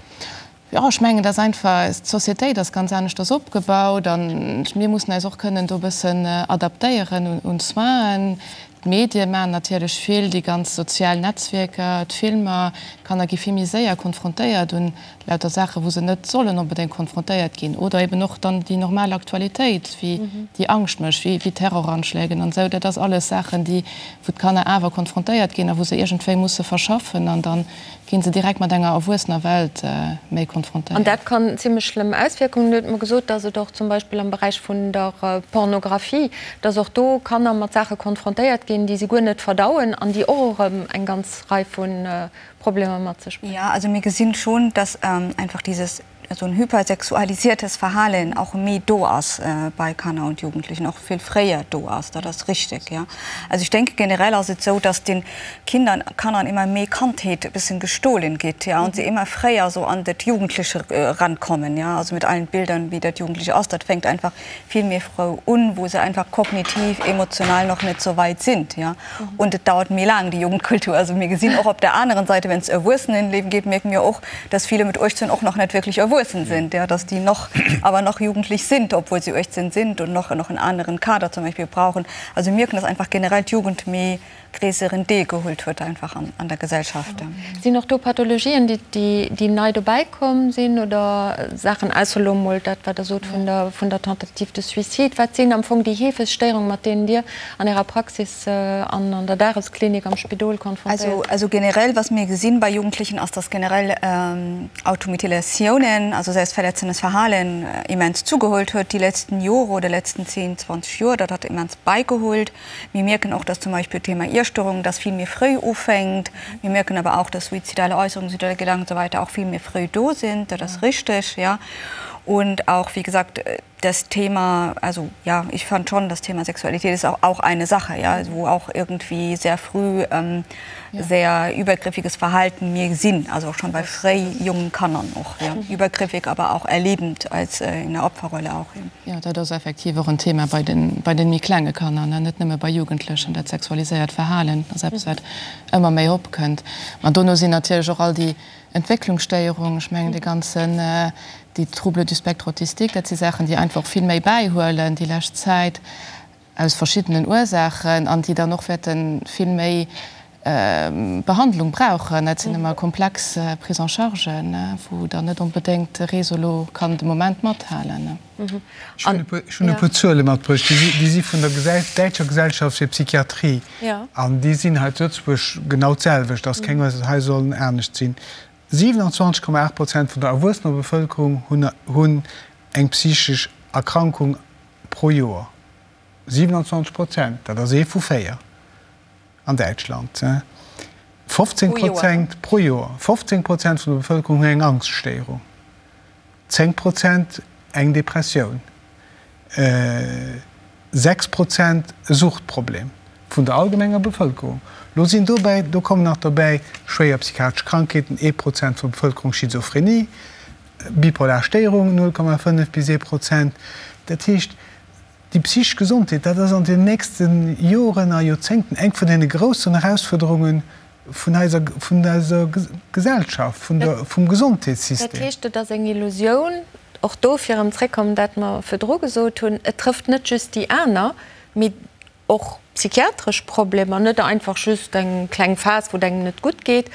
Jo, ech mengen, dass einfach d'Sociétéit ass ganz aneschters opgebaut an mir mussen eis och kënnen do e bëssen adaptéieren un d'Soinen. D'Medie maachen natierlech vill, déi ganz sozial Netzwierker, d'Filmer. D'Kanner gi vill méi séier konfrontéiert un lauter Saachen, wou se net sollen onbedéngt konfrontéiert ginn. Oder eben och dann déi normal Aktualitéit, wéi déi Angscht mécht, wéi Terroranschlägen an esou. Dat ass alles Saachen, déi, wou d'Kanner awer konfrontéiert ginn a wou se iergendwéi musse verschaffen an dann Ginn se direkt mat enger erwuessener Welt méi konfrontéiert. An dat kann zimlech schlëmm Auswierkungen hunn. Huet mer gesot, dass et och zum Beispill am Beräich vun der Pornographie, dass och do Kanner mat Saache konfrontéiert ginn, déi se guer net verdauen an déi och erëm eng ganz Rei vu Problemer mat sech bréngen. Jo, also mir gesinn schon, dass einfach dieses esou en hypersexualisiertes Verhalen och méi do ass bei Kanner und Jugendlichen, och vill fréier do ass, dat ass richtig, ja. Also ich denke, generell ass et sou, dass den Kindern, Kannern immer méi Kandheet e bëssen gestohlen gétt, ja, und se immer fréier sou an dat Jugendliche rankommen, ja, also mit allen Bildern, wéi dat Jugendliche ass, dat fänkt einfach vill méi frou un, wou se einfach kognitiv, emotional noch net sou weit sind, ja. Und et dauert méi laang, déi Jugendkultur. Also mir gesinn och op der aneren Seite, wenn es Erwuessenenleben geht, merken mir och, dass viele mit 18 och noch net wirklich erwuessen sind, ja, dass die noch, aber noch jugendlich sind, obwohl sie 18 sind und noch, noch en aneren Kader zum Beispiel brauchen. Also mir mierken, dass einfach generell d'Jugend méi gréisseren Deel geholt huet einfach an, an der Gesellschaft. Sinn och do Pathologien, déi, déi, déi nei dobäi komm sinn oder Saachen, ausser elo emol dat, wat Der sot vun der, vun der Tentative de suicide? Wat sinn am Fong déi heefegst Stéierungen, mat deenen Dir an Ärer Praxis an an der Dagesklinik am Spidol konfrontéiert sinn? Also generell, was mir gesinn bei Jugendlichen, ass, dass generell Automutilatiounen, also selbstverletzendes Verhalen, immens zugeholt huet déi letzten Jore oder letzten 10, 20 Joer. Dat hat immens beigeholt. Mir mierken och, dass zum Beispill d'Thema Iesstörung, dass vill méi fréi ufänkt. Mir mierken awer auch, dass suizidale Äusserungen, suizidale Gedanken und so weiter auch vill méi fréi do sinn. Dat ass richteg, ja. Und auch, wie gesagt, das Thema, also ja, ich fand schon, das Thema Sexualität ist auch, auch eine Sache, ja, wo auch irgendwie sehr früh ähm, ja. sehr übergriffiges Verhalten mir sinn, also auch schon bei fréi jungen Kannern och, ja. Übergriffig, aber auch erlebend als äh, in der Opferrolle auch. Ja. Jo, dat ass effektiv och en Thema bei den, bei den méi klenge Kanner, ne, net nëmme bei Jugendlechen. Dat sexualiséiert Verhalen ass eppes, wat ëmmer méi opkënnt. Ma dono sinn natierlech och all déi Entwécklungsstéierungen, ech mengen dee ganzen, déi Troubles du spectre autistique, dat si Saachen, déi einfach och vill méi bäihuelen déi lescht Zäit aus verschiddenen Ursaachen an déi dann och wäerte vill méi Behandlung brauchen. Dat sinn ëmmer komplex Prise-en-chargen, wou dann net onbedéngt de Réseau elo kann de Moment mathalen. Ech hunn e puer Zuele matbruecht, déi si vun der Däitscher Gesellschaft fir Psychiatrie an déi sinn hei zu Lëtzebuerg genau d'selwecht, ass keng Ursaach, hei sollen anescht sinn. 27,8 Prozent vun der erwuessener Bevëlkerung hunn eng psychesch Erkrankung pro Joer. 27 Prozent, dat ass ee vu 4 an Däitschland. 15 Prozent pro Joer. 15 Prozent vun der Bevëlkerung hunn eng Angschtstéierung. 10 Prozent eng Depressioun, 6 Prozent e Suchtproblem vun der allgemenger Bevëlkerung. Lo sinn dobäi, do kommen nach dobäi schwéier psychiatresch Krankheeten, ee Prozent vun der Bevëlkerung, Schizophrenie, bipolar Stéierung, 0,5 bis ee Prozent. Dat heescht, déi psychesch Gesondheet, dat ass an den nächste Joren a Joerzéngten eng vun deene groussen Erausfuerderungen vun eiser, vun eiser Gesellschaft, vun der, vum Gesondheetssystem. Dat heescht, et ass eng Illusioun, och do fir erëm zréckkommen, dat mer virdru gesot hunn, et trëfft net just déi aner, mee och Psychiatresch Problemer, net einfach just eng kleng Phas, wou et engem net gutt geet,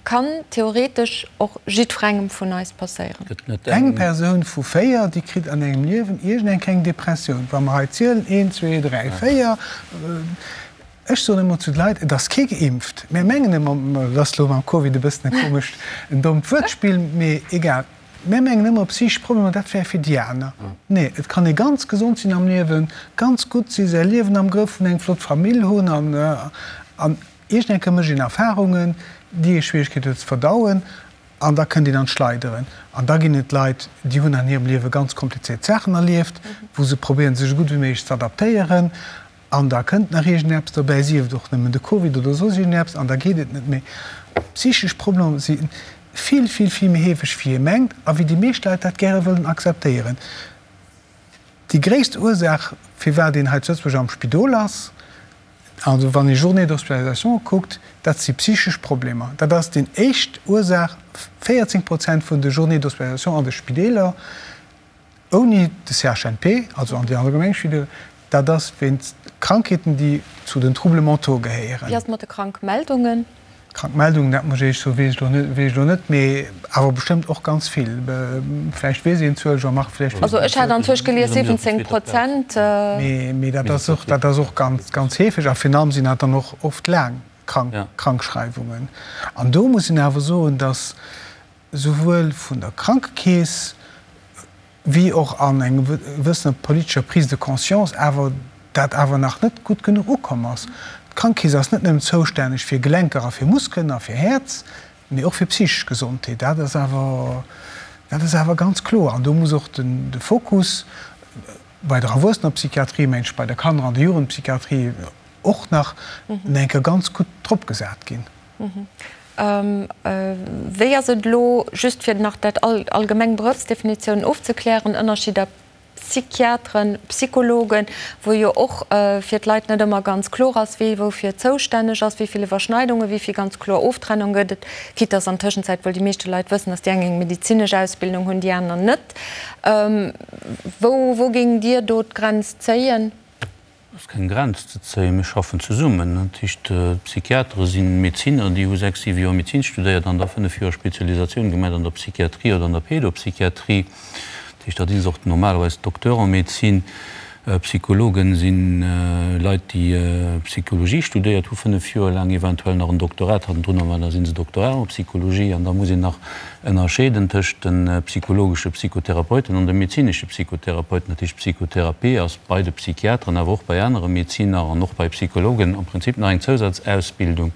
kann theoretesch och jiddwerengem vun eis passéieren. Eng Persoun vu 4, déi kritt an engem Liewen iergend eng kleng Depressioun. Wa mer hei zielen, een, zwee, dräi, véier. Ech soen ëmmer zu de Leit, et ass kee geimpft. Mir mengen ëmmer, et ass elo mam Covid e bëssen e komescht, en dommt Wuertspill, mee egal, mir mengen ëmmer, psychesch Problemer, dat wär fir déi aner. Nee, et kann ee ganz gesond sinn am Liewen, ganz gutt sinn, säi Liewen am Grëff hunn, eng flott Famill hunn an, an iergend eng Kéier mécht een Erfarungen, déi ee Schwieregkeet huet ze verdauen an da kënnt een an d'Schleideren. An da ginn et Leit, déi hunn an hirem Liewe ganz komplizéiert Saachen erlieft, wou se probéieren, sech esou gutt wéi méiglech ze adaptéieren. An da kënnt nach iergendeppes dobäi, sief et och nëmmen de Covid oder soss iergendeppes, an da geet et net méi. Psychesch Problemer si vill, vill, vill méi heefeg, wéi ee mengt a wéi déi meescht Leit dat gäre wëllen akzeptéieren. Déi gréisst Ursaach, firwat een hei zu Lëtzebuerg am Spidol ass, also wann ee Journées d'hospitalisation kuckt, dat si psychesch Problemer. Dat ass déi éischt Ursaach, 14 Prozent vun de Journées d'hospitalisation an de Spideeler. Ouni de CHNP, also an déi allgemeng Spidol, dat ass wéinst Krankheeten, déi zu den Troubles mentaux gehéieren. Wéi ass et mat de Krankmeldungen? Krankmeldungen, dat muss ech Iech soen, weess ech elo net, weess ech elo net, mee awer bestëmmt och ganz vill. Vläicht weess een d'Zuel, Jean-Marc, vläicht weess Also ech hat anzwousch gelies 17 Prozent. Mee dat ass och, dat ass och ganz, ganz heefeg a virun allem sinn dat dann och oft laang Krankschreiwungen. An do muss een awer soen, dass souwuel vun der Krankekeess wéi och an enger gewëssener politescher Prise de conscience awer dat awer nach net gutt genuch ukomm ass. D'Krankekeess ass net nëmmen zoustänneg fir Gelenker a fir Muskelen a fir Häerz, mee och fir psychesch Gesondheet. Dat ass awer, dat ass awer ganz kloer. An do muss och den, de Fokus bei der Erwuessenerpsychiatrie, mengen ech, bei der Kanner an der Jugendpsychiatrie och nach eng Kéier ganz gutt drop gesat ginn. Wéi ass et elo, just fir nach dat allgemeng Beruffsdefinitioun ofzeklären, Ënnerscheeder Psychiateren, Psychologen, wou jo och fir d'Leit net ëmmer ganz kloer ass, wee woufir zoustänneg ass, wéi vill Iwwerschneidungen, wéi vill ganz kloer Oftrennung gëtt et, quitte dass an Tëschenzäit wuel déi meeschte Leit wëssen, dass déi eng eng medezinesch Ausbildung hunn, déi aner net. Wou, wou géingt Dir do d'Grenz zéien? Et ass keng Grenz ze zéien. Mir schaffen zesummen. Dat heescht, d'Psychiatere si Medezinner, déi hu sechs, siwe Joer Medezin studéiert an da fënnef Joer Spezialisatioun gemaach an der Psychiatrie oder an der Pédopsychiatrie. Dat heescht, dat si och normalerweis Docteurs en médecine. Psychologen si Leit, déi Psychologie studéiert hu fënnef Joer laang, eventuell nach en Doktorat hannendrun hunn, da si se Doctorats en psychologie. An da muss een nach ënnerscheeden tëscht de psychologesche Psychotherapeuten an de medezinesche Psychotherapeuten. Dat heescht, Psychotherapie ass bei de Psychiateren, awer och bei anere Medeziner an och bei Psychologen am Prinzip nach eng Zousazausbildung,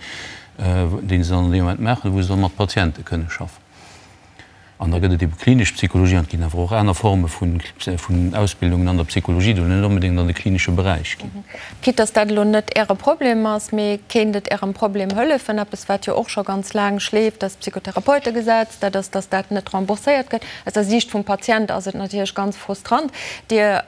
déi se dann an deem Moment maachen, wou se dann mat Patiente kënne schaffen. An da gëtt et ebe klinesch Psychologie an et ginn awer och aner Forme vun Ausbildungen an der Psychologie, déi net onbedéngt an de klinesche Beräich ginn. Quitte dass dat elo net Äre Problem ass, mee kéint et Ärem Problem hëllefen? Eppes, wat jo och scho ganz laang schleeft, dat Psychotherapeutegesetz, dat ass, dass dat net rembourséiert gëtt. Aus der Siicht vum Patient ass et natierlech ganz frustrant. Dir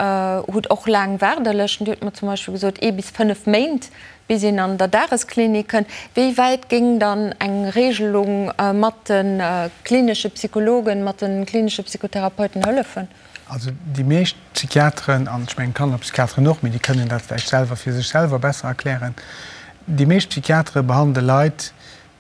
hutt och laang Waardelëschten. Dir hutt mer zum Beispill gesot, ee bis fënnef Méint, bis een an der Dagesklinik kënnt. Wéi wäit géing dann eng Regelung mat de klinesche Psychologen, mat de klinesche Psychotherapeuten hëllefen? Also déi meescht Psychiateren, an ech mengen d'Kannerpsychiateren och, mee déi kënnen dat vläicht selwer fir sech selwer besser erklären, déi meescht Psychiatere behandele Leit,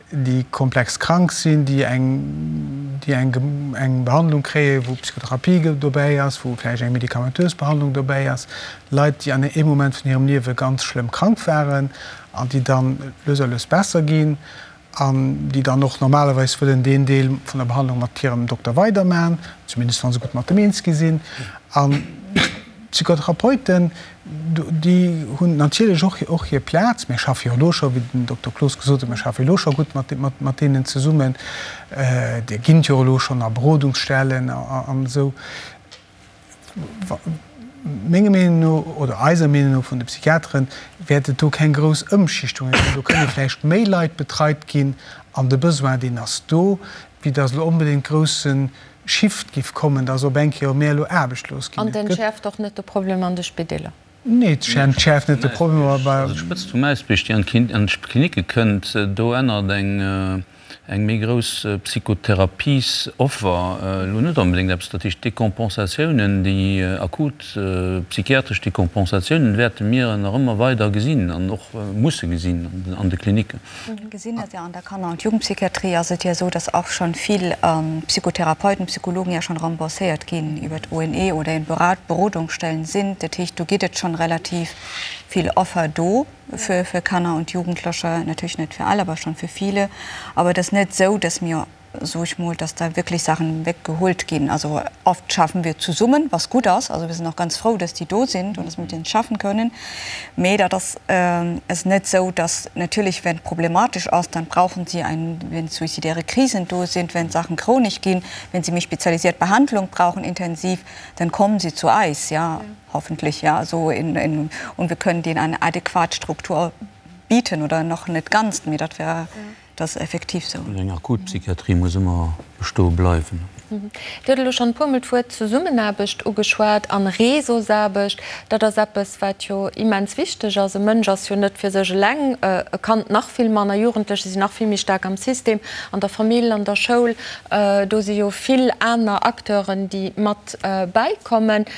déi komplex krank sinn, déi eng, déi eng, eng Behandlung kréien, wou Psychotherapie dobäi ass, wou vläicht eng medikamentös Behandlung dobäi ass, Leit, déi an engem Moment vun hirem Liewe ganz schlëmm krank waren an déi dann lues a lues besser ginn. an déi dann och normalerweis wëllen deen Deel vun der Behandlung mat hirem Dokter weidermachen, zumindest wa se gutt mat dem eens gi sinn. An d'Psychotherapeuten, déi hunn natierlech och och hir Plaz. Mir schaffe jo elo scho, wéi den Dokter Cloos gesot huet, mir schaffe elo scho gutt mat mat deenen zesummen. Déi ginn et jo elo schonn a Berodungsstellen an esou. Menger Meenung no, oder eiser Meenung no vun de Psychiateren, wäert et do keng grouss Ëmschichtunge ginn. Do kënne vläicht méi Leit betreit ginn an de Besoin, deen ass do, wéi datt elo onbedéngt grousse Shift giff kommen, datt op eng Kéier méi elo aarbechtlos ginn. An et entschäerft och net de Problem an de Spideeler. Nee, et entschäerft net de Problem, awer. Also d'Spëtzt vum Äisbierg, déi an d'Klinicke kënnt, do ännert eng. Eng méi grouss Psychotherapiesoffer, elo net onbedéngt eppes, dat heescht Decompensatiounen, déi akut psychiatresch Decompensatiounen wäerte mir nach ëmmer weider gesinn an och musse gesinn an de Klinicken. Mir gesinn dat jo an der Kanner und Jugendpsychiatrie ass et jo esou, dass och schonn vill Psychotherapeuten, Psychologen ja schonn rembourséiert ginn iwwer d'ONE oder in Berodungsstellen sinn. Dat heescht, do gétt et schonn relativ vill Offer do. Für, für Kanner und Jugendliche, natürlich net fir all, aber schon für viele. Aber et ass net esou, dass mir, so ich mol, dass da wirklich Sachen weggeholt ginn. Also oft schaffen wir zesummen, was gutt ass. Also wir sind och ganz frou, dass déi do sind und dass wir mit denen schaffen können. Mee dat ass, ass net esou, dass natürlich, wenn problematisch ass, dann brauchen sie ein, wenn suizidäre Krisen do sind, wenn Sachen chronisch ginn, wenn sie méi spezialisiert Behandlung brauchen, intensiv, dann kommen sie zu eis, ja. Hoffentlich ja so in, in, und wir können denen eine adäquat Struktur bieten oder nach net ganz, mee dat wär dat ass effektiv sou. Eng akut Psychiatrie muss ëmmer bestoe bleiwen. Dir hutt elo schonn e puermol d'Wuert Zesummenaarbecht ugeschwat an Réseausaarbecht. Dat ass eppes, wat jo immens wichteg ass. E Mënsch ass jo net fir sech eleng, e Kand nach vill manner, Jugendlecher sinn nach vill méi staark am System, an der Famill, an der Schoul. Do si jo vill aner Acteuren, déi mat bäikommen.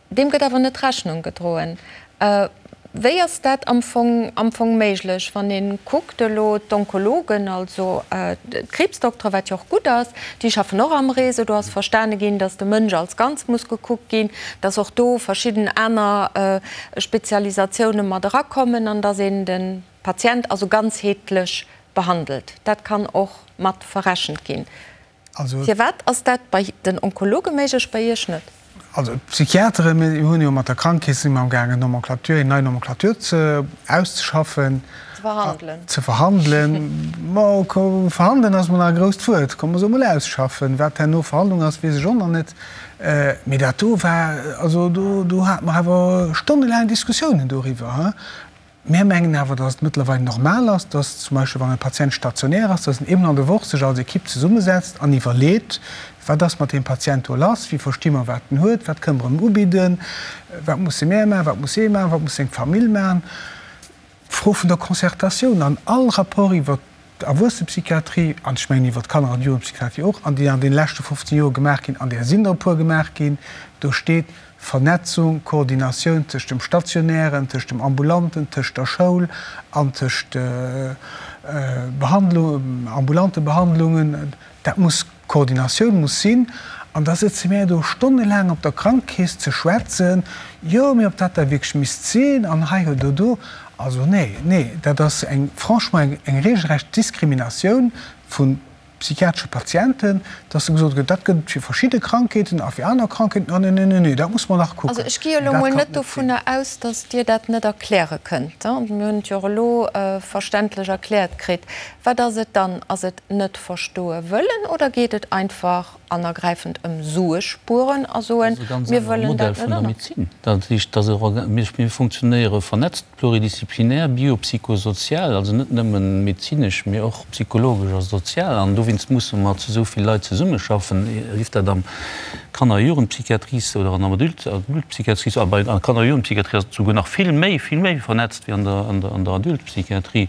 Deem gëtt awer net Rechnung gedroen. Wéi ass dat am Fong, am Fong méiglech, wann ee kuckt elo d'Onkologen, also d'Kriibsdoktere, wat jo och gutt ass, déi schaffen och am Réseau, do ass verstane ginn, datt de Mënsch als Ganz muss gekuckt ginn, datt och do verschidden aner Spezialisatioune mat erakommen an datt een de Patient also ganzheetlech behandelt. Dat kann och mat verrechent ginn. Firwat ass dat bei den Onkologe méiglech, bei Iech net? Also d'Psychiateren, mir hunn jo mat der Krankekeess si mer amgaangen eng Nomenclature, eng nei Nomenclature ze auszeschaffen. Ze verhandelen. Ze verhandelen. Ma verhandelen ass mol nach e grousst Wuert. Komm mer soe mol ausschaffen. Wat herno Verhandlung ass, weess ech och nach net. Mee dat do war, also do, do hate mer awer stonnelaang Diskussiounen doriwwer. Mär mengen awer, dass et mëttlerweil normal ass, dass zum Beispill, wann e Patient stationär ass, dass en eemol an der Woch sech als Equipe zesummesetzt an iwwerleet, Wat ass mat deem Patient do lass? Wéi versti mer, wat en huet? Wat kënne mer em ubidden? Wat musse mär maachen? Wat muss hie maachen? Wat muss seng Famill maachen? D'Fro vun der Concertatioun an all Rapport iwwer d'Erwuessenepsychiatrie, an ech mengen iwwer d'Kanner an Jugendpsychiatrie och, an déi an deene leschte 15 Joer gemaach ginn, an där sinn der e puer gemaach ginn, do steet Vernetzung, Koordinatioun tëscht dem Stationären, tëscht dem Ambulanten, tëscht der Schoul an tëscht Behandlung, ambulante Behandlungen, dat muss, Koordinatioun muss sinn. An da sëtze mär do stonnelaang op der Krankekeess ze schwätzen, jo, mee ob dat da wierklech misst sinn an hei oder do. Also nee, nee, dat ass eng, franchement, eng regelrecht Diskriminatioun vu psychiatresche Patienten, dass da gesot gëtt, dat gëtt et fir verschidde Krankheeten a fir aner Krankheeten, ah nee, nee, nee, nee, dat muss mer nach kucken. Also ech gi jo elo mol net dovunner aus, dass Dir dat net erkläre kënnt. Mir hunn et jo och elo verständlech erkläert kritt. Wat ass et dann? Ass et net verstoe wëllen oder geet et einfach an ergräifend ëm Sue spueren a soen, mir wëllen dat net anerkennen? Dat heescht, dass mir funktionéiere vernetzt, pluridisziplinär, biopsychosozial, also net nëmmen medezinesch, mee och psychologesch a sozial. An dowéinst musse mer zu esou vill Leit zesummeschaffen, sief dat am Kanner a Jugendpsychiatrie oder an der Adultpsychiatrie. A bei der Kanner a Jugendpsychiatrie ass et souguer nach vill méi, vill méi vernetzt wéi an der Adultpsychiatrie.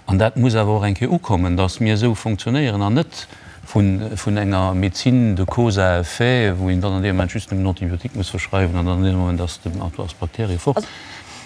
An dat muss awer och eng Kéier ukommen, dass mir esou fonctionnéieren an net vun enger Médecine de cause à effet, wou een dann an deem Moment just nëmmen Antibiotique muss verschreiwen an dann an deem Moment ass d'Bakterie fort.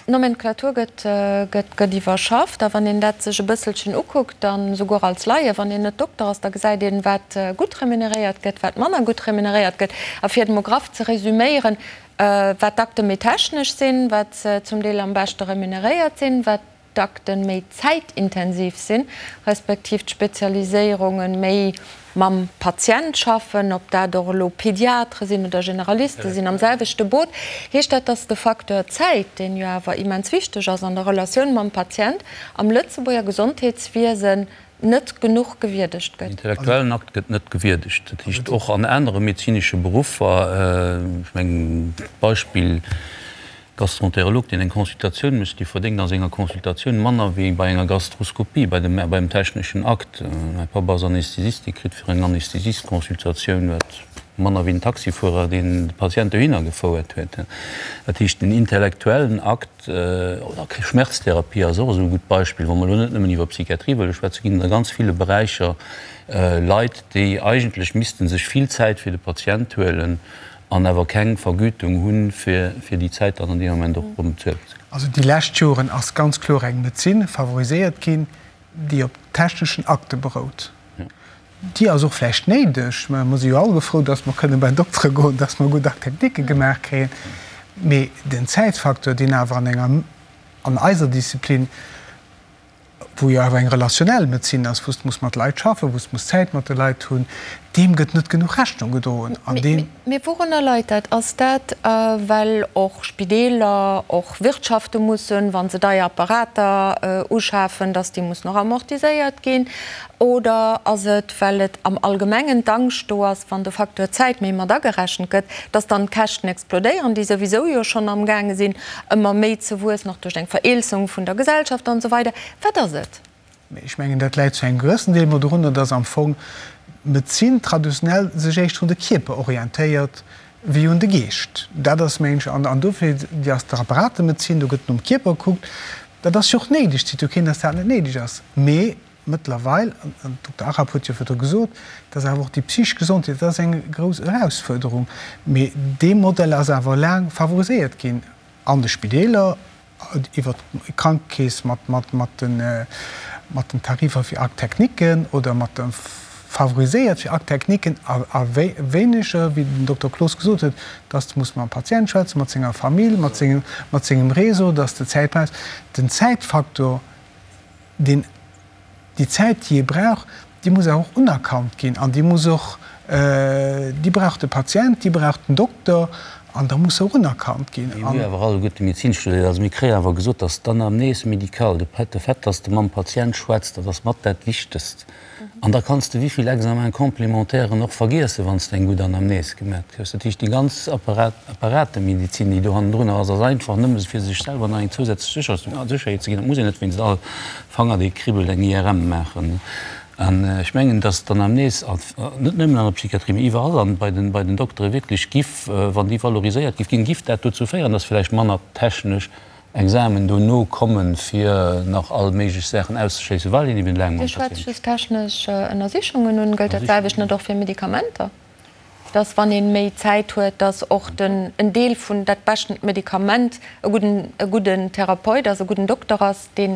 D'Nomenclature gëtt iwwerschafft a wann een dat sech e bësselchen ukuckt, dann esouguer als Laie, wann een net Dokter ass, da gesäit een, wat gutt remuneréiert gëtt, wat manner gutt remuneréiert gëtt. A fir et emol graff ze resüméieren, wat d'Akte méi technesch sinn, wat se zum Deel am beschte remuneréiert sinn, wat d'Akten méi zäitintensiv sinn, respektiv d'Spezialiséierunge méi mam Patient schaffen, ob dat och elo Pediatre sinn oder Generaliste sinn am selwechte Boot, heescht dat, dass de Facteur Zäit, deen jo awer immens wichteg ass an der Relatioun mam Patient, am Lëtzebuerger Gesondheetswiesen net genuch gewierdegt gëtt. Den intellektuellen Akt gëtt net gewierdegt. Dat heescht, och an anere medezinesche Beruffer, ech mengen d'Beispill Gastroenterolog, deen eng Consultatioun mécht, dee verdéngt a senger Consultatioun manner wéi bei enger Gastroskopie, bei dem, beim techneschen Akt. Mäi Papp ass Anästhesist, dee kritt fir eng Anästhesist-Consultatioun, wat. Manner wéi den Taxifuerer, deen de Patient dohinner gefouert huet. Dat heescht, den intellektuellen Akt, oder Schmerztherapie ass och esou e gutt Beispill, wa mer elo net nëmmen iwwer Psychiatrie wëlle schwätzen, ginn et a ganz ville Beräicher Leit, déi eigentlech misste sech vill Zäit fir de Patient huelen an awer keng Vergütung hunn, fir déi Zäit dann an deem Moment och erëm bezuelt ze kréien. Also déi lescht Joren ass ganz kloer eng Medezin favoriséiert ginn, déi op techneschen Akte berout. Déi ass och vläicht néideg. Mer si jo alleguer frou, dass mer kënne bei den Doktere goen, dass mer gutt Akteknike gemaach kréien. Mee den Zäitfaktor, deen awer an enger, an eiser Disziplin, wou jo awer eng relationell Medezin ass, wou s de muss mat Leit schaffen, wou s de muss Zäit mat de Leit hunn, deem gëtt net genuch Rechnung gedroen. An deen. Mee wourunner leit dat? Ass dat, well och Spideeler, och Wirtschafte mussen, wa se deier Apparater uschafen, datt déi mussen och amortiséiert ginn? Oder ass et, well et am Allgemengen d'Angscht do ass, wann de Facteur Zäit méi mat agerechent gëtt, datt dann d'Käschten explodéieren, déi souwisou jo schonn amgaange sinn, ëmmer méi ze wuessen, och duerch eng Vereelzung vun der Gesellschaft an esou weider? Wat ass et? Mee ech mengen, dat läit zu engem gewëssen Deel mol dorunner, dass am Fong d'Medezin traditionell sech éischter un de Kierper orientéiert wéi un de Geescht. Dat ass, mengen ech, an dofir, déi ass d'Apparatemedezin, do gëtt nom Kierper gekuckt. Dat ass jo och néideg, et seet jo keen, dass dat net néideg ass. Mee mëttlerweil, an den Dokter Arab huet jo virdru gesot, dass awer och déi psychesch Gesondheet, dat ass eng grouss Erausfuerderung. Mee dee Modell ass awer laang favoriséiert ginn an de Spideeler, iwwer d'Krankekeess mat den Tarifer fir Actes-techniquen oder mat de favoriséiert fir Actes-techniquen a wéineger, wéi den Dokter Cloos gesot huet, dass de muss mam Patient schwätzen, mat senger Famill, mat sengem Réseau, dass de Zäit brauchs. Den Zäitfaktor, deen Déi Zäit, déi ee brauch, déi muss awer och unerkannt ginn an déi muss och, déi brauch de Patient, déi brauch den Dokter an da muss se och unerkannt ginn. Mir hu jo awer alleguerte Medezin studéiert, also mir kréien awer gesot, dass d'Anamnese médicale, de Fait, dass de mam Patient schwätzt, dat ass mat dat Wichtegst. An da kanns de wéivill Examens complémentairen och vergiessen, wann s de eng gutt Anamnese gemat kriss. Dat heescht, déi ganz Apparatemedezin, déi do hannendrunner ass, ass einfach nëmme fir sech selwer nach eng zousätzlech Sécherheet ze ginn. Et muss een net wéinst all Fanger, dee kribbelt, eng IRM maachen. An ech mengen, dass d'Anamnese net nëmmen an der Psychiatrie, mee iwwerall an bei den Doktere wierklech giff, wann déi valoriséiert giff ginn, giff dat dozou féieren, dass vläicht manner technesch Examen dono kommen, fir nach all méiglech Saachen auszeschléissen, well een eben laang mam Dir schwätzt just technesch Ënnersichungen un. Gëllt dat selwecht net och fir Medikamenter, dass wann ee méi Zäit huet, dass och den en Deel vun dat beschten Medikament e gudden e gudden Therapeut ass, e gudden Dokter ass, dee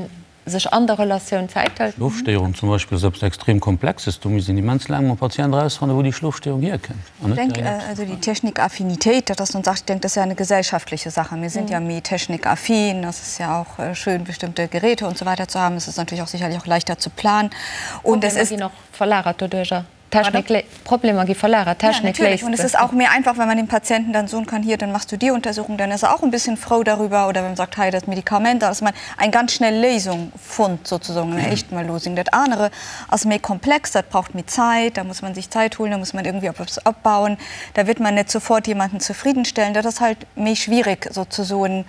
sech an der Relatioun Zäit hëlt? Schlofstéierung zum Beispill ass eppes extrem Komplexes. Do misst een immens laang mam Patient erausfannen, wou déi Schlofstéierung hierkënnt. Ich denke, also die Technikaffinität, dat ass nun Sache, ich denke, das ist ja eine gesellschaftliche Sache. Mir sind ja méi technikaffin, das ist ja auch schön, bestimmte Geräte und so weiter zu haben. Es ist natürlich auch sicherlich auch leichter zu planen. Und es ist. Problemer ginn och verlagert doduercher. Technik, Problemer gi verlagert, Technik léist. Ja, natürlich. Und es ist auch mehr einfach, wenn man dem Patienten dann soen kann, hier, dann machst du die Untersuchung, dann ist er auch ein bisschen frou darüber. Oder wenn man sagt, hei, dat Medikament, da dass man eng ganz schnell Léisung fonnt, sozusagen, eng éischt Mal Losung. Dat anere ass méi komplex, dat braucht méi Zäit, da muss man sich Zeit holen, da muss man irgendwie op eppes opbauen, da wird man net sofort jemanden zufriedenstellen. Dat ass halt méi schwierig, sozusoen,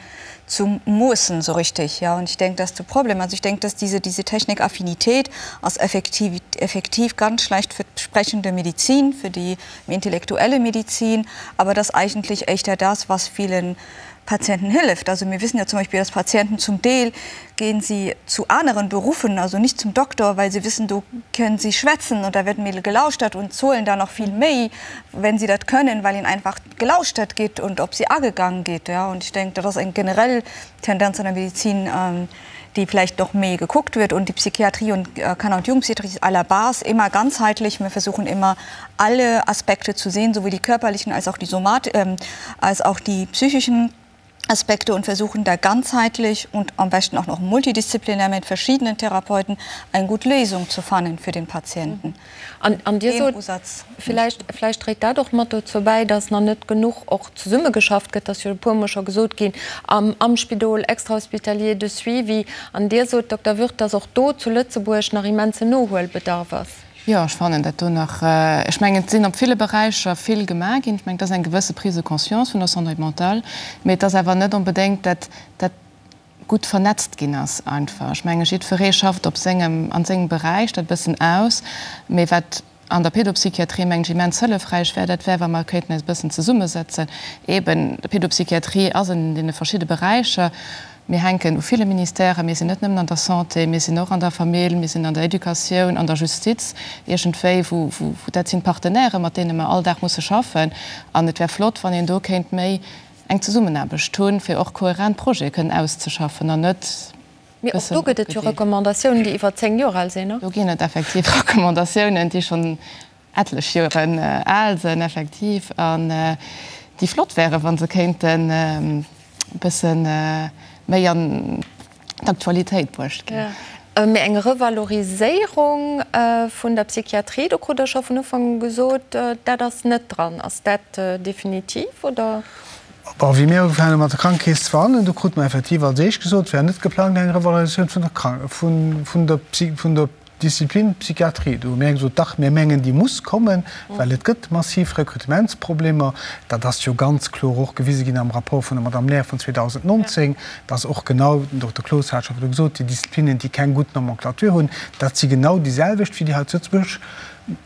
zu moossen, so richtig. Ja, und ich denke, dass de Problem, also ich denke, dass diese, diese Technikaffinität ass effektiv, effektiv ganz schlecht für d'sprechende Medizin, für die intellektuelle Medizin, aber dass eigentlich éischter das, was vielen Patienten hilft. Also mir wissen ja zum Beispiel, dass Patienten zum Deel gehen sie zu anderen Berufen, also nicht zum Doktor, weil sie wissen, do können sie schwätzen und da wird méi gelauschtert und zahlen da noch viel méi, wenn sie dat können, weil ihnen einfach gelauschtert gétt und op sie agegangen gétt. Ja. Und ich denke, dat ass eng generell Tendenz an der Medizin, déi vläicht noch méi gekuckt wird. Und die Psychiatrie und Kanner- und Jugendpsychiatrie ist à la base immer ganzheitlich. Wir versuchen immer, alle Aspekte zu sehen, sowohl die körperlichen als auch die somat als auch die psychischen Aspekte und versuchen da ganzheitlich und am besten auch noch multidisziplinär mit verschiedenen Therapeuten eng gutt Léisung zu fannen fir den Patienten. An Dir sot, villäicht, villäicht dréit dat och mat dozou bäi, datt nach net genuch och zesummegeschafft gëtt, dat ass jo e puermol scho gesot ginn, am, am Spidol, extrahospitalier de suivi. An Dir sot, Dokter Würth, datt och do zu Lëtzebuerg nach immensen Nohuelbedarf ass. Jo, ech fannen dat do nach, ech mengen, et sinn op ville Beräicher vill gemaach ginn. Ech mengen, et ass eng gewësse Prise de conscience vun der Santé mentale, mee et ass awer net onbedéngt dat, dat gutt vernetzt ginn ass einfach. Ech menge jiddweree schafft op sengem, an sengem Beräich dat e bëssen aus, mee wat. an der Pédopsychiatrie, mengen ech, immens hëllefräich wär, dat wär, wa mer kéinten eis e bëssen zesummesetzen. Eben, d'Pédopsychiatrie ass an deene verschidde Beräicher. Mir hänken u ville Ministèren. Mir sinn net nëmmen an der Santé, mir sinn och an der Famill, mir sinn an der Educatioun, an der Justiz, iergendwéi, wou, wou, dat sinn d'Partenairen, mat deene mer all Dag musse schaffen. An et wär flott, wann een do kéint méi eng Zesummenaarbecht hunn, fir och kohärent Projete kënnen auszeschaffen an net Mee och do gëtt et jo Recommandatiounen, déi iwwer 10 Joer al sinn. Do ginn et effektiv Recommandatiounen, déi schonn etlech Joren al sinn, effektiv, an déi flott wären, wa se kéinten e bësse méi an d'Aktualitéit bruecht ginn. Mee eng Revaloriséierung vun der Psychiatrie, do krut Der scho vun Ufank u gesot, dat ass net dran. Ass dat definitiv, oder? Bon, wéi mir ugefaangen hu mat der Krankekeess ze verhandelen, do krute mer effektiv als éischt gesot, et wär net geplangt eng Revalorisatioun vun der Krank-, vun, vun der Psy-, vun der Disziplin Psychiatrie. Do hu mir gesot, dach, mir mengen, déi muss kommen, well et gëtt massiv Rekrutementsproblemer. Dat ass jo ganz kloer och gewise ginn am Rapport vun der Madame Lair vun 2019, dass och genau, den Dokter Cloos hat scho virdu gesot, déi Disziplinen, déi keng gutt Nomenclature hunn, dat si genau déi selwecht wéi déi hei zu Lëtzebuerg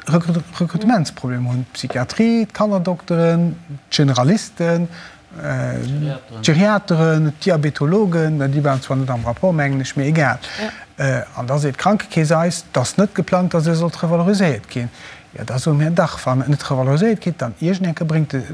Rekrutementsproblemer hunn, d'Psychiatrie, d'Kannerdokteren, d'Generalisten, d'Geriateren, d'Diabetologen, déi waren zwar net am Rapport, mengen ech, mee egal. An da seet d'Krankekeess eis, et ass net geplangt, datt se sollt revaloriséiert ginn. Jo, da soe mir, dach, wann et net revaloriséiert gétt, dann iergend eng Kéier bréngt de,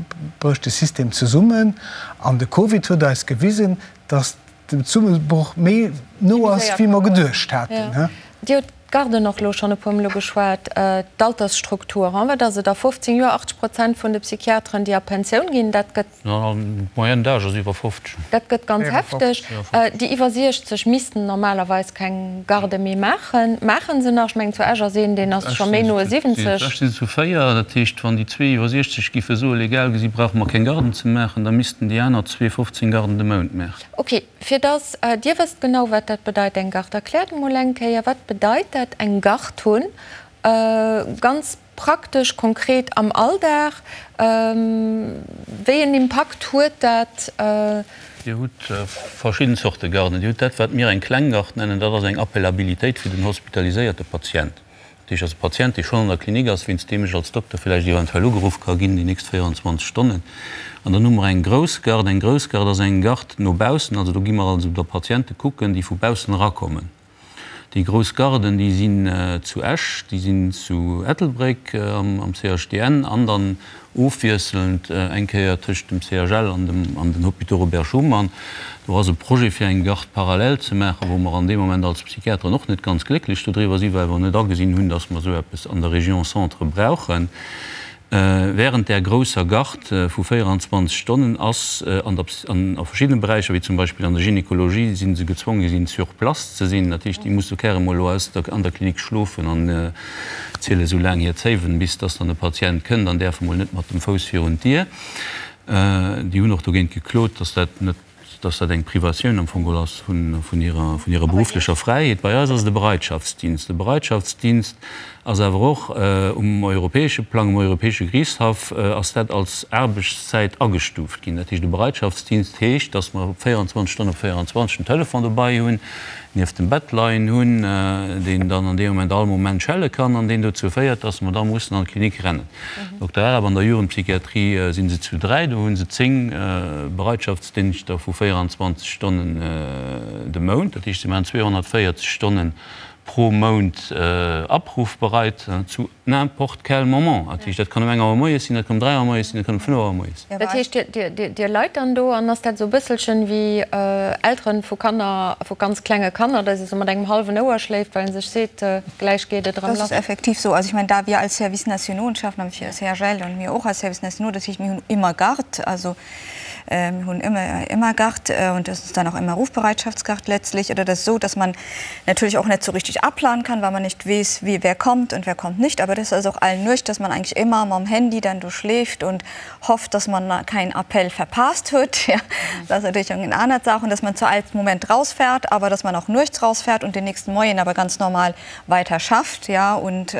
brécht de System zesummen. An de Covid huet eis gewisen, datt den Zesummebroch méi no ass, wéi mer geduecht haten. Dir hutt d'Garden och elo schonn e puermol ugeschwat, d'Altersstruktur, wat ass et a 15 Joer, 80 Prozent vun de Psychiateren, déi a Pensioun ginn, dat gëtt. D'Moyenne d'âge ass iwwer 50. Dat gëtt ganz hefteg. Déi iwwer 60 missten normalerweis keng Garde méi maachen. Maache se nach? Ech mengen, zu Esch ass een, deen ass scho méi no 70. Zu Esch si se zu 4. Dat heescht, wann déi zwee iwwer 60 giffe soen, legal gesi brauche mer keng Garden ze maachen, da missten déi aner zwee 15 Garden de Mount maachen. Ok, fir dass Dir wësst genau wat dat bedeit eng Gard, erkläert emol eng Kéier, wat bedeit dat eng Gard hunn, ganz praktesch, konkret am Alldag, wéi en Impakt huet dat? Dir hutt verschidden Zorte Garden. Dir hutt dat wat mir eng kleng Gard nennen, dat ass eng Appellabilitéit fir den hospitaliséierte Patient. Dat heescht, ass e Patient, dee schonn an der Klinik ass, wéinst deem ech als Dokter villäicht eventuell ugeruff ka ginn déi nächst 24 Stonnen. An dann hu mer eng grouss Garde. Eng grouss Garde ass eng Garde no baussen, also do gi mer also da Patiente kucken, déi vu baussen erakommen. Déi grouss Garden, déi sinn zu Esch, déi sinn zu Ettelbréck am CHDN an dann Ofwiesselnd eng Kéier tëscht dem CHL an dem an den Hôpitaux Robert Schuman. Do ass e Projet fir eng Garde parallèle ze maachen, wou mer an deem Moment als Psychiateren och net ganz glécklech dodriwwer sinn, well mer net agesinn hunn, dass mer esou eppes an der Région Centre brauchen. Während där grousser Garde vu 24 Stonnen ass an der an a verschiddene Beräicher, wéi zum Beispill an der Gynekologie, si se gezwonge sinn sur place ze sinn. Dat heescht, déi musse carrément elo aus der an der Klinik schlofen an ziele sou laang hir Zéiwen, bis dass dann e Patient kënnt an däerf emol net mat dem Fouss virun d'Dier. Déi hunn och dogéint geklot, dass dat net, dass dat eng Privatioun am Fong geholl ass vun hirer, vun hirer berufflecher Fräiheet. Bei eis ass et e Bereitschaftsdienst. E Bereitschaftsdienst ass awer och um europäesche Plang, um europäesche Geriichtshaff ass dat als Aarbechtszäit agestuuft ginn. Dat heescht, e Bereitschaftsdienst heescht, dass mer 24 Stonnen op 24 den Telefon dobei hunn, nieft dem Bett leien hunn, deen dann an deem Moment all Moment schelle kann an deen dozou féiert, dass mer da mussen an d'Klinik rennen. Dokter Arab, An der Jugendpsychiatrie si se zu 3, do hu se 10 Bereitschaftsdingschter vu 24 Stonnen de Mount, dat heescht, si maachen 240 Stonnen pro Mount abrufbereit zu N'importe quel moment. Dat heescht, dat kann um eng Auer moies sinn, dat kann um 3 Auer moies sinn, dat kann um 5 Auer moies sinn. Dat heescht, Dir leit dann do an ass dat esou e bësselchen wéi Elteren vu Kanner, vu ganz klenge Kanner, datt ee sou mat engem hallwen Ouer schléift, well ee sech seet, gläich geet et erëm lass? Das ist effektiv so. Also ich meine, da wir als Service nationaux schaffen, am CHL und mir och als Service nationaux, das heescht, mir hunn immer Garde, also mir hunn ëmmer ëmmer Garde und das ist dann auch immer Rufbereitschaftsgarde letztlich oder das ist so, dass man natürlich auch nicht so richtig abplanen kann, weil man nicht weess, wie wer kommt und wer kommt nicht. Aber das ist auch allen nuecht, dass man eigentlich immer mam Handy dann do schläft und hofft, dass man keinen Appell verpasst huet. Ja, das ist natürlich eng aner Saach und dass man zu all Moment rausfährt, aber dass man auch nuechts rausfährt und den nächsten Moien aber ganz normal weiter schafft, ja, und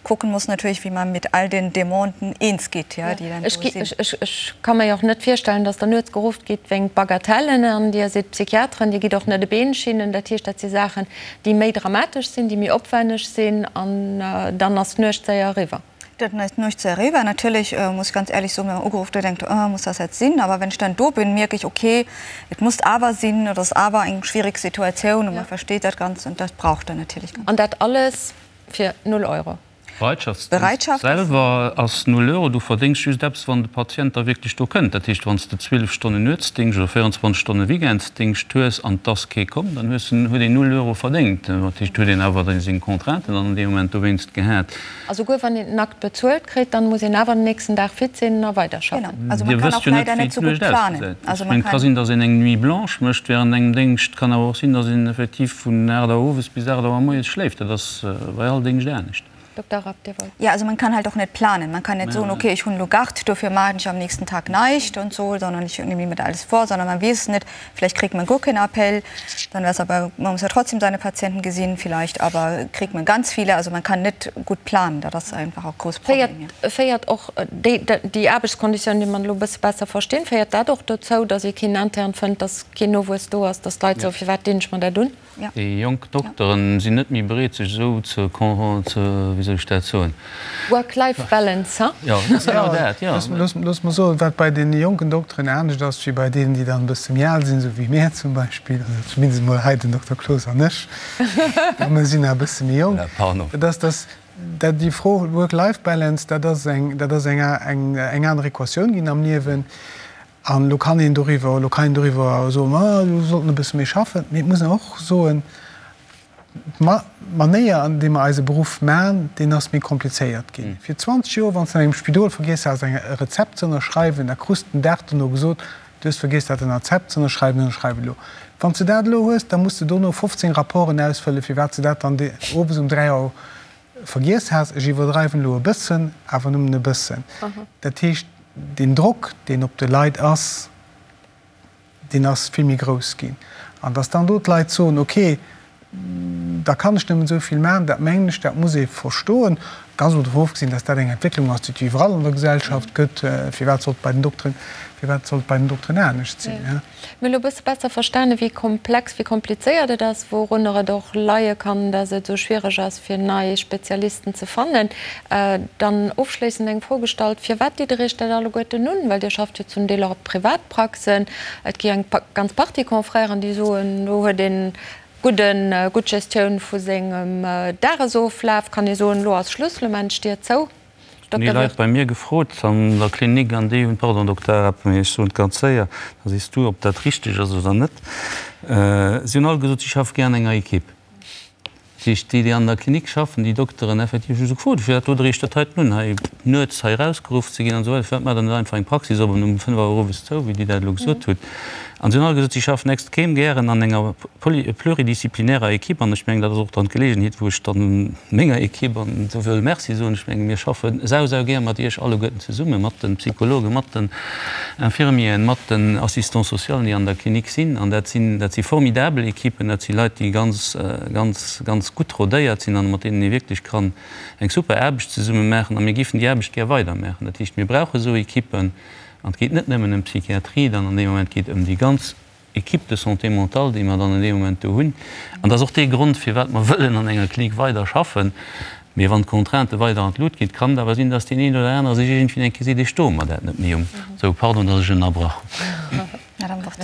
kucken muss natürlich, wie man mit all den Demanden eens geht, ja, déi dann do sinn. Ech ka mer jo och net virstellen, dass der nuets gerufft gitt wéingt Bagatellen an Dir sidd Psychiateren, Dir gitt och net e Been schinnen. Dat heescht, dat si Saachen, déi méi dramatesch sinn, déi méi opwenneg sinn an dann ass d'Nuecht séier eriwwer. Dat ist nicht zu erregen. Natürlich äh, muss ich ganz ehrlich so, wenn man ugerufen wird, denkt, oh, muss das jetzt sinn? Aber wenn ich dann do bin, merke ich, okay, et muss awer sinn oder es awer eng schwierig Situation und ja. man versteht dat ganz und das braucht dann natürlich. An dat alles fir 0 Euro? Bereitschaftsdéngscht selwer ass null Euro. Du verdéngs just eppes, wann de Patient da wierklech do kënnt. Dat heescht, wann s de 12 Stonnen Nuetsdéngscht oder 24 Stonne Weekendsdéngscht hues an 't ass kee komm, dann hues en, huet een null Euro verdéngt. Dat heescht, huet een awer seng Contrainten dann an deem Moment dowéinst gehat. A souguer wann een den Akt bezuelt kritt, dann muss een awer den nächsten Dag fit sinn a weiderschaffen. Genau. Also man Dir kann wësst och jo net, leider wéi net sou gutt d'Nuecht planen. ausgesäit. Also Ech man mengen, et ka kann. sinn, datt een eng Nuit blanche mécht während engem Déngscht. Et kann awer och sinn, datt een effektiv vun 8 Auer owes bis 8 Auer moies schléift. Dat ass bei all Déngscht anescht. Dokter Rapp, Dir wollt. Ja, also man kann halt och net planen. Man kann net soen, okay, ech hunn elo Gard, dofir maachen ech am nächsten Tag näischt und so, sondern ich nehme mir alles vor, sondern man weess net, vielleicht kriegt man guer keen Appel, dann wär's aber, man muss ja trotzdem seine Patienten gesinn vielleicht, aber kriegt man ganz viele, also man kann net gutt planen, dat ass einfach och grouss Problem, ja. Féiert och déi, déi Aarbechtskonditiounen, déi mer elo e bësse besser verstinn, féiert dat och dozou, datt ee keen Intern fënnt, datt keen Nowuess do ass, datt d'Leit soen, firwat dinn ech mer dat un? Déi jonk Dokteren sinn net méi bereet sech esou ze, wéi soll ech dat soen? Work-life balance, ha? Jo, dat ass genau dat, jo. Looss mer soen, wat bei deene jonken Dokteren anescht ass wéi bei deenen, déi dann e bësse méi al sinn, esou wéi mär zum Beispill, also zumindest emol hei den Dokter Cloos an ech, a mir sinn nach e bësse méi jonk, dat ass, dass dat déi Fro Work-life balance, dat ass eng, dat ass eng, eng aner Equatioun ginn am Liewen. An elo kann een doriwwer, elo kann een doriwwer soen, ma elo sollt en e bësse méi schaffen. Mee et muss een och soen, d'Manéier, an deem mer eise Beruff maachen, deen ass méi komplizéiert ginn. Fir 20 Joer, wann s de an engem Spidol vergiess has, eng e Rezept ze ënnerschreiwen, da krus de den Dag dono gesot, du hues vergiess dat Rezept ze ënnerschreiwen, ënnerschreif elo. Wann s de dat elo hues, da muss de dono 15 Rapporten ausfëllen, firwat s de dat dann owes um 3 Auer vergiess has. Ech iwwerdreiwen elo e bëssen, awer nëmmen e bëssen. Dat heescht, deen Drock, deen op de Leit ass, deen ass vill méi grouss ginn. An dass dann do d'Leit soen, okay, da kann ech nëmmen esou vill maachen, dat mengen ech, dat muss ee verstoen. Ganz emol dovun ofgesinn, dass dat eng Entwécklung ass, déi et iwwerall an der Gesellschaft gëtt. Firwat sollt et bei den Dokteren, firwat sollt et bei den Dokteren anescht sinn? Mir hu elo e bësse besser verstanen, wéi komplex, wéi komplizéiert et ass, wourunner et och leie kann, dass et esou schwiereg ass, fir nei Spezialisten ze fannen. Dann ofschléissend eng Fro gestallt, Firwat ditt Der Iech dat alleguerten un? Well Dir schafft jo zum Deel och op Privatpraxen. Et gi eng ganz Partie Confrèren, déi soen, do huet een gudden, gutt Gestioun vu sengem Dagesoflaf, kann ee soen, elo ass Schluss, elo maachen ech d'Dier zou. Hunn déi Leit bei mir gefrot an der Klinik an déi hunn, pardon Dokter Arap, mee ech soen et ganz séier, da sees du, ob dat richteg ass oder net, si hunn all gesot, si schaffe gär an enger Ekipp. Dat heescht, déi, déi an der Klinik schaffen, déi Dokteren effektiv, hu se gefrot, firwat dot Der Iech dat heiten un, hei nuets hei erausgeruff ze ginn an esou weider, firwat maacht Der net einfach eng Praxis op an um 5 Auer owes zou, wéi Dir dat elo gesot hutt. An si hunn all gesot, si schaffen extrem gären an enger pluridisciplinärer Ekipp an ech mengen, dat ass och dann d'Geleegenheet, wou ech dann menger Ekipp an do wëll Merci soen. Ech menge mir schaffe sau, sau gär mat Iech alleguerten zesummen, mat de Psychologen, mat den Infirmieren, mat den Assistants socialen, déi an der Klinik sinn. An dat sinn, dat si formidabel Ekippen, dat si Leit, déi ganz, ganz, ganz gutt rodéiert sinn an mat deenen ee wierklech kann eng super Aarbecht zesumme maachen. A mir géifen déi Aarbecht gär weidermaachen. Dat heescht, mir brauche esou Ekippen. An et geet net nëmmen ëm d'Psychiatrie dann an deem Moment, et geet ëm déi ganz Équipe de santé mentale, déi mer dann an deem Moment do hunn. An dat ass och dee Grond, firwat mer wëllen an enger Klinik weider schaffen. Mee wann d'Contraintë weider an d'Lut ginn, kann et awer sinn, dass deen een oder anere sech iergendwéi eng Kéier seet, ech stoe mer dat net méi um. Sou, pardon, dass ech ënnerbrach hunn. Madame Worth.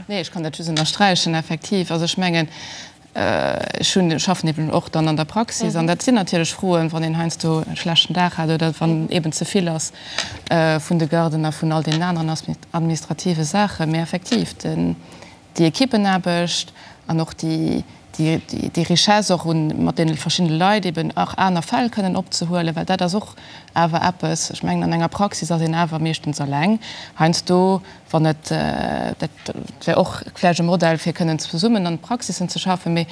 Nee, ech kann dat just ënnersträichen, effektiv. Also ech mengen, Ech hunn, schaffen eben och dann an der Praxis an dat sinn natierlech Froen, wann een heiansdo e schlechten Dag hat oder wann eben ze vill ass vun de Garden a vun all deenen aneren administrative Saachen. Mee effektiv, den, déi Equippenaarbecht an och déi, déi, déi Richesse och un mat deene verschiddene Leit eben och aner Fäll kënnen opzehuelen, well dat ass och awer eppes, ech mengen an enger Praxis ass een awer meeschtens eleng heiansdo, Wann et, dat wär och vläicht e Modell, fir kënnen zesummen an Praxissen ze schaffen, mee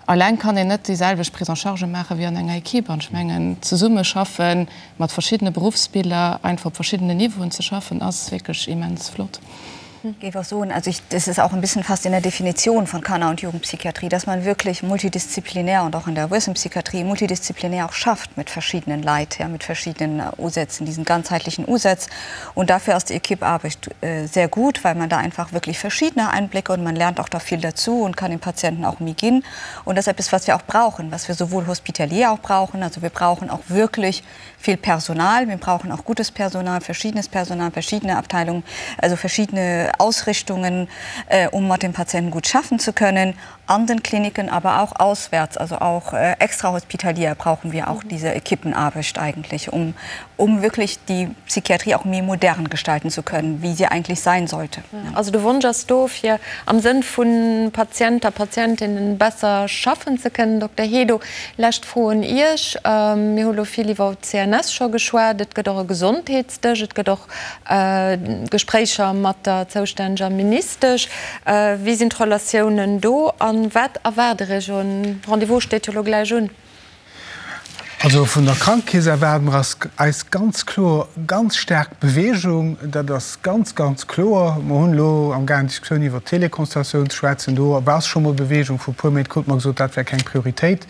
alleng kann een net déi selwecht Prise en charge maache wéi an enger Equipe. An ech mengen, zesummeschaffen mat verschiddene Beruffsbiller, einfach op verschiddenen Niveauen ze schaffen, ass wierklech immens flott. Géif och soen, also ich, das ist auch ein bisschen fast in der Definition von Kanner und Jugendpsychiatrie, dass man wirklich multidisziplinär und auch in der Erwuessenenpsychiatrie multidisziplinär auch schafft mit verschiedenen Leit, ja, mit verschiedenen Usätzen, diesen ganzheitlichen Usatz. Und dafür ist die Equipearbeit sehr gut, weil man da einfach wirklich verschiedene Einblicke und man lernt auch da viel dazu und kann den Patienten auch méi ginn. Und das ist etwas, was wir auch brauchen, was wir sowohl hospitalier auch brauchen, also wir brauchen auch wirklich vill Personal, mir brauchen auch gutes Personal, verschiedenes Personal, verschiedene Abteilungen, also verschiedene Ausrichtungen, um mat dem Patienten gut schaffen zu können, an den Kliniken, aber auch auswärts, also auch extrahospitalier brauchen wir auch diese Equipenarbecht eigentlich, um, um wirklich die Psychiatrie auch méi modern gestalten zu können, wie sie eigentlich sein sollte. Also de Wonsch ass do, fir am Sënn vu Patient a Patientinnen besser schaffen ze kënnen. Dokter Hedo, Lescht Fro un Iech. Mir hu lo vill iwwer d'CNS scho geschwat. Et gëtt och e Gesondheetsdësch, et gëtt och Gespréicher mat der zoustänneger Ministesch. Wéi sinn d'Relatiounen do a wat erwaart Der Iech? E Rendez-vous steet jo lo gläich un. Also vun der Krankekeess erwaarde mer eis ganz kloer ganz staark Bewegung. Dat ass ganz, ganz kloer. Mer hunn elo am gaangen d'Diskussioun iwwert d'Teleconsultatioun ze schwätzen. Do ass scho mol Bewegung. Vor e puer Méint krute mer gesot, dat wär keng Prioritéit.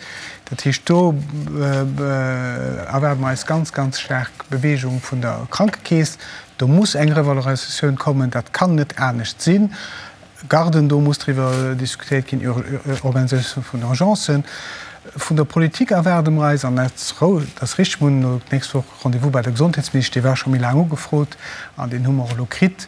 Dat heescht, do erwaarde mer eis ganz, ganz staark Bewegung vun der Krankekeess. Do muss eng Revalorisatioun kommen. Dat kann net anescht sinn. Garden, do muss driwwer diskutéiert ginn, Organisatioun vun Urgencen. Vun der Politik erwaarde mer eis, an dat ass richteg, mir hunn elo d'nächst Woch Rendez-vous bei der Gesondheetsministesch, dee war scho méi laang ugefrot an deen hu mer och elo kritt.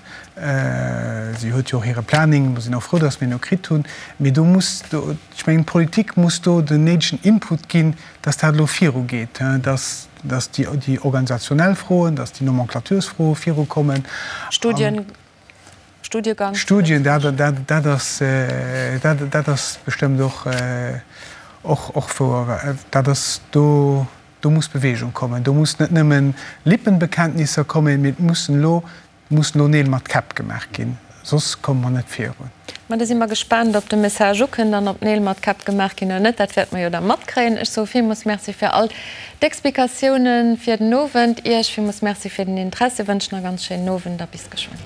Si huet jo och hire Planning, mer sinn och frou, datt mir en elo kritt hunn. Mee do muss, ech mengen, d'Politik muss do den néidegen Input ginn, datt dat elo virugeet, datt déi organisationell Froen, datt déi Nomenclatursfroe virukommen. Studien. Studiegang. Studien, dat, dat, dat ass, dat, dat ass bestëmmt och, och, och wouer. Dat ass, do, do muss Bewegung kommen. Do muss net nëmmen Lippenbekenntnisser kommen, mee et mussen elo, mussen elo Neel mat Käpp gemaach ginn, soss komme mer net virun. Ma da si mer gespaant, ob de Message ukënnt an ob Neel mat Käpp gemaach ginn oder net. Dat wäerte mer jo da matkréien. Ech soe villmools Merci fir all d'Explikatiounen fir den Owend. Iech villmools Merci fir den Interessi, wënschen e ganz schéinen Owend a bis geschwënn.